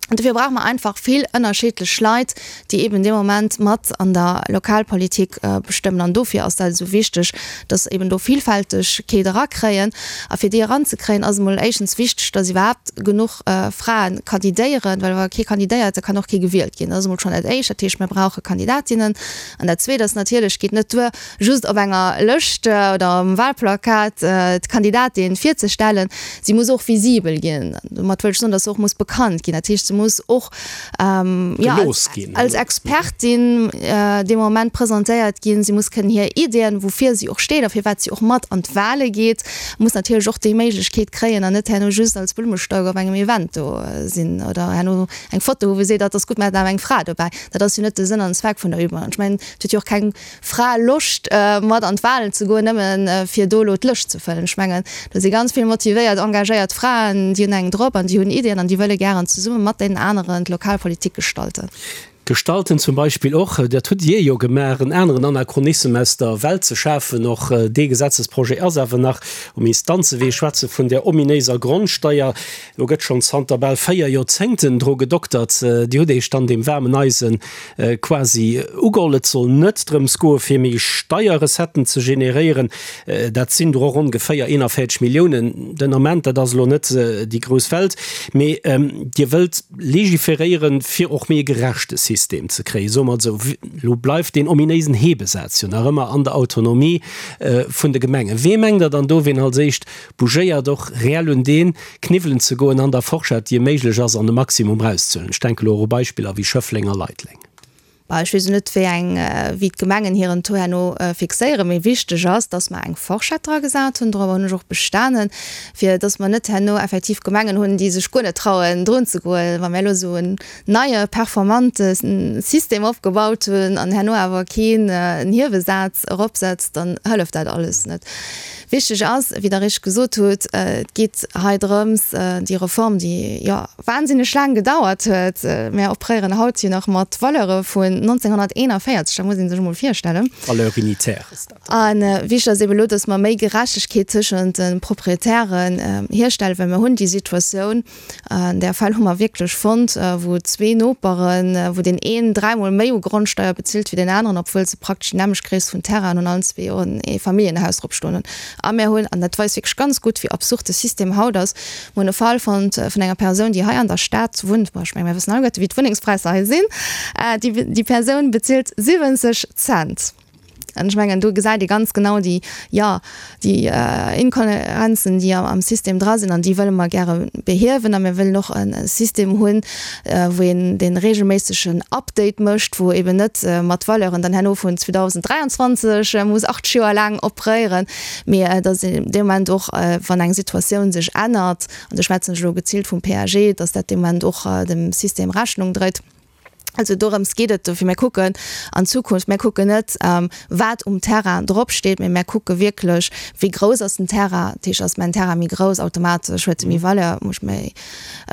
An dofir brauche mer einfach vill ënnerschiddlech Leit, déi eben dee Moment mat an der Lokalpolitik bestëmmen. An dofir ass dat esou wichteg, dass eben do Villfältegkeet erakréien. A fir déi eranzekréien, ass emol éischtens wichteg, dass iwwerhaapt genuch Frae kandidéieren, well wa kee kandidéiert, da kann och kee gewielt ginn. Dat ass emol schonn dat Éischt. Dat heescht, mir brauche Kandidatinnen. An dat Zweet ass natierlech, et geet net duer, just op enger Lëscht oder um Wahlplakat d'Kandidatin virzestellen, si muss och visibel ginn. Domat wëll ech soen, datt se och muss bekannt ginn. Dat heescht, se muss och jo als Expertin dee Moment presentéiert ginn. Si muss kënnen hir Iddien, woufir si och steet a firwat si och mat an d'Wahle geet, muss natierlech och déi Méiglechkeet kréien an net herno just als Blummestauk op engem Event do sinn oder herno eng Foto hu wou seet, dat ass gutt, mir haten awer eng Fra dobäi. Dat ass jo net de Sënn an Zweck vun der Übung. An ech mengen, et huet jo och keng Fra Loscht mat an d'Wahlen ze goen, nëmmen fir do elo d'Lëscht ze fëllen. Ech mengen, do si ganz vill motivéiert, engagéiert Fraen, déi hunn eng drop an déi hunn Iddien an déi wëlle gären zesumme mat deenen aneren d'Lokalpolitik gestalten. Gestalten zum Beispill och, dat hutt Dir jo gemaach, en aneren Anachronissem aus der Welt ze schafen. Och dee Gesetzesprojet ass awer nach um Instanzewee. Ech schwätze vun där ominéiser Grondsteier. Do gëtt schonn zanter bal 4 Joerzéngten dru gedoktert. Dir hutt Iech dann deem waarmen Eise quasi ugeholl. Et soll net drëms goe fir méi Steierrecetten ze generéieren. Dat sinn der och ongeféier 41 Milliounen den Ament. Dat ass elo net déi grouss Welt. Mee Dir wëllt legiferéieren, fir och méi e gerechte System ze kréien, soe mer et esou. Elo bleift deen ominéisen Hebesaz jo nach ëmmer an der Autonomie vun de Gemengen. Wee mengt Der dann do, ween als éischt bougéiert och reell un dee Kniwwelen ze goen an der Forschett, déi méiglech ass, an de Maximum erauszehuelen. Ech denken elo och u Beispiller wéi Schëffleng a Leideleng. Bah, ech weess elo net, wéi eng, wéi d'Gemengen hiren Taux herno fixéieren, mee wichteg ass, dass mer eng Forschett dra gesat hunn, dorobber hunn ech och bestanen, fir dass mer net herno effektiv Gemengen hunn, déi sech guer net trauen drun ze goen, wa mir elo esou en neie performante System opgebaut hunn an herno awer keen en Hiewesaz eropsetzt, dann hëlleft dat alles net. Wichteg ass, wéi Der richteg gesot hutt, et geet hei drëms, déi Reform, déi jo wahnsinneg laang gedauert huet, mir operéieren haut jo nach mat Valeure vun 1941, dat muss ee sech emol virstellen. Valeur unitaire ass dat. A wichteg ass eeben elo, dass mer méi Gerechtegkeet tëschent de Proprietären hierstellen, well mir hunn déi Situatioun, An där Fäll hu mer wierklech fonnt, wou zwee Noperen, wou deen een dräimol méi u Grondsteier bezilt wéi deen aneren, obwuel se praktesch déi nämmlecht Gréisst vun Terrainen hunn, allen zwee och en Eefamilljenhaus drop stoen hunn. A mir hunn, an dat weist wierklech ganz gutt, wéi absurd de System haut ass, mir hunn e Fall fonnt vun enger Persoun, déi hei an der Stad wunnt, bon, ech menge mir wëssen alleguerte wéi d'Wunnengspräisser hei sinn, déi Persoun bezilt 70 Cent. An ech mengen, do gesäit ee ganz genau déi, jo, déi Inkohärenzen, déi am System dra sinn. An déi wëlle mer gäre behiewen. A mir wëllen och e System hunn, wou een dee regelméissegen Update mécht, wou eben net mat Valeuren dann herno vun 2023 muss 80 Joer laang operéieren, mee datt een dee Moment och, wann eng Situatioun sech ännert, an do schwätzen ech elo geziilt vum PAG, datt dat dee Moment och dem System Rechnung dréit. Also dorëms geet et. Dofir, mir kucken an d'Zukunft. Mir kucken net, wat um Terrain dropsteet, mee mir kucke wierklech, wéi grouss ass den Terrain. Dat heescht, ass mäin Terrain méi grouss, automatesch huet e méi Valeur, muss ech méi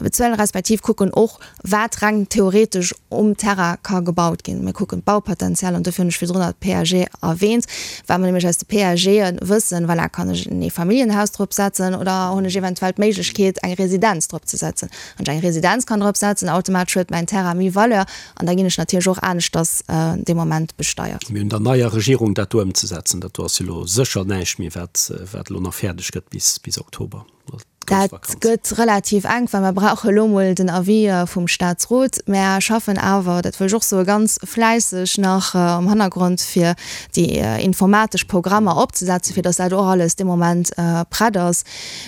bezuelen. Respektiv kucken och, wat reng theoretesch um Terrain ka gebaut ginn. Mir kucken d'Baupotenzial an dofir hunn ech virdrun nach d'PAG erwähnt, well mer nämlech aus de PAGe wëssen, voilà, kann ech en Eefamilljenhaus drop setzen oder hunn ech eventuell d'Méiglechkeet, eng Residenz drop ze setzen. Wann ech eng Residenz kann drop setzen, automatesch huet mäin Terrain méi Valeur an da ginn ech natierlech och aneschters dee Moment besteiert. Mir hunn der neier Regierung dat do ëmzesetzen. Dat do ass jo elo sécher näischt méi, wat wat elo nach fäerdeg gëtt bis bis Oktober, also d'grouss Dat Vakanz. gëtt relativ enk, well mer brauche elo mol den Avis vum Statsrot. Mär schaffen awer, dat wëll ech och soen, ganz fläisseg nach am Hannergrond, fir déi informatesch Programmer opzesetzen, fir datt dat och alles dee Moment prett ass.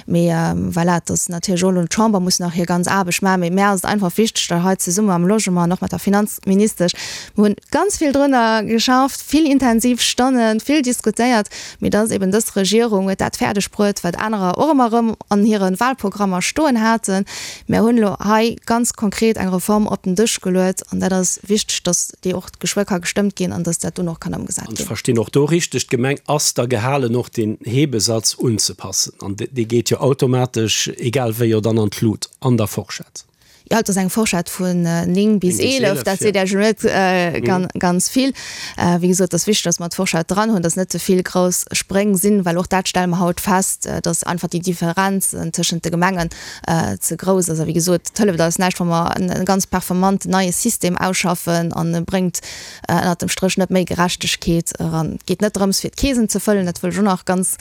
Mee voilà, et ass natierlech och elo, d'Chamber muss nach hir ganz Aarbecht maachen. Mee mär ass et einfach wichteg, datt hei zesumme mam Logement an och mat der Finanzministesch, mir hunn ganz vill drënner geschafft, vill intensiv Stonnen, vill diskutéiert, mee datt eben dës Regierung huet dat fäerdeg bruet, wat anerer och ëmmer erëm an hire Wahlprogrammer stoen haten. Mär hunn elo hei ganz konkret eng Reform op den Dësch geluet an dat ass wichteg, datt déi och geschwë ka gestëmmt ginn an datt dat dunn och kann ëmgesat ginn. An ech verstinn och do richteg, d'Gemeng ass da gehalen och deen Hebesatz unzepassen an dee geet jo automatesch, egal wéi, jo dann an d'Lut an der Forschett. Jo, et ass eng Forschett vun 9 bis 11, dat seet Iech elo net ganz vill. Wéi gesot, et ass wichteg, datt mer d'Forschett dran hunn, datt net ze vill grouss Spréng sinn, well och dat stelle mer haut fest, datt einfach déi Differenz tëschent de Gemengen ze grouss ass. A wéi gesot, et hëlleft eis näischt, wa mer e ganz performanten neie System ausschaffen an e bréngt ënnert dem Stréch net méi Gerechtegkeet eran. Et geet net drëms, fir d'Keesen ze fëllen, dat wëll ech och nach ganz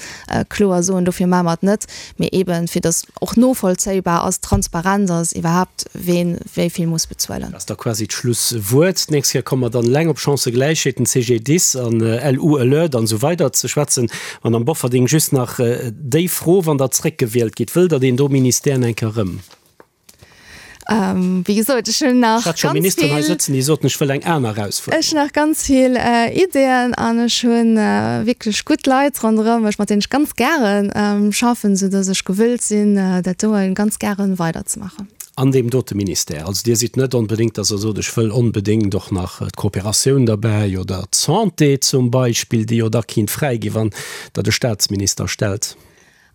kloer soen, dofir maache mer et net, mee eeben, fir datt och novollzéibar ass, transparent ass iwwerhaapt, ween wéi vill muss bezuelen. Dat ass da quasi d'Schlusswuert. D'nächst Kéier komme mer dann eleng op Chancëgläichheet, den CGDIS an LU Alert an esou weider ze schwätzen. Madamm Bofferding, just nach déi Fro, Wann Der zréckgewielt gitt, wëllt Der deen do Ministère eng Kéier erëm? Wéi gesot, ech hunn nach ganz vill. Ech hat scho Ministeren hei sëtzen, déi soten, ech wëll eng aner Erausfuerderung. Ech hunn nach ganz vill Ideeën an ech hu wierklech gutt Leit ronderëm mech, mat deenen ech ganz gäre schaffen, soudass ech gewëllt sinn, dat doe ganz gäre weiderzemaachen. An deem dote Ministère. Also Dir sidd net onbedéngt, dass Der sot, ech wëll onbedéngt och nach d'Kooperatioun derbäi oder d'Santé zum Beispill, déi jo da kinnt fräi ginn, wann Der de Statsminister stellt.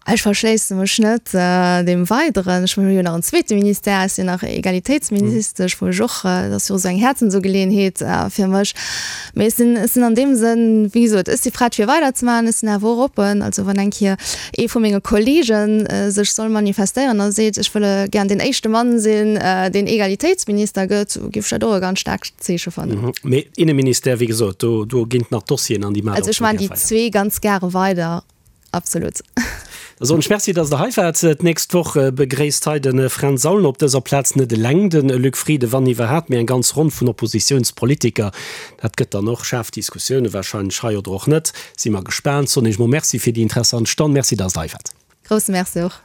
Ech verschléisse mech net deem Weideren. Ech hunn jo nach en zweete Ministère, ech sinn nach Egalitéitsministesch, wou ech och, dat ass jo och esou eng Häerzensugeleeënheet fir mech. Mee ech sinn, ech sinn an deem Sënn, wéi gesot, ech si prett fir weiderzemaachen, ech sinn awer och oppen. Also wann eng Kéier ee vu menge Kollege sech soll manifestéieren a seet, ech wëlle gären deen éischte Mann sinn, deen Egalitéitsminister gëtt, géif ech dat och e ganz staarkt Zeeche fannen. Mee Inneministère, wéi gesot, do, do ginn nach Dossieren an déi maacht Also ech maachen déi zwee ganz gäre weider. Absolut. Da soen ech Merci, dass Der hei waart. D'nächst Woch begréisst hei de Fränz Aulner op dëser Plaz net eleng de Luc Frieden, wann iwwerhaapt, mee eng ganz Ronn vun Oppositiounspolitiker. Dat gëtt dann och schaarf Diskussioune warscheinlech hei oder och net. Si mer gespaant. Soen Iech mol Merci fir déi interessant Stonn. Merci, dass Der hei waart. Grousse Merci och.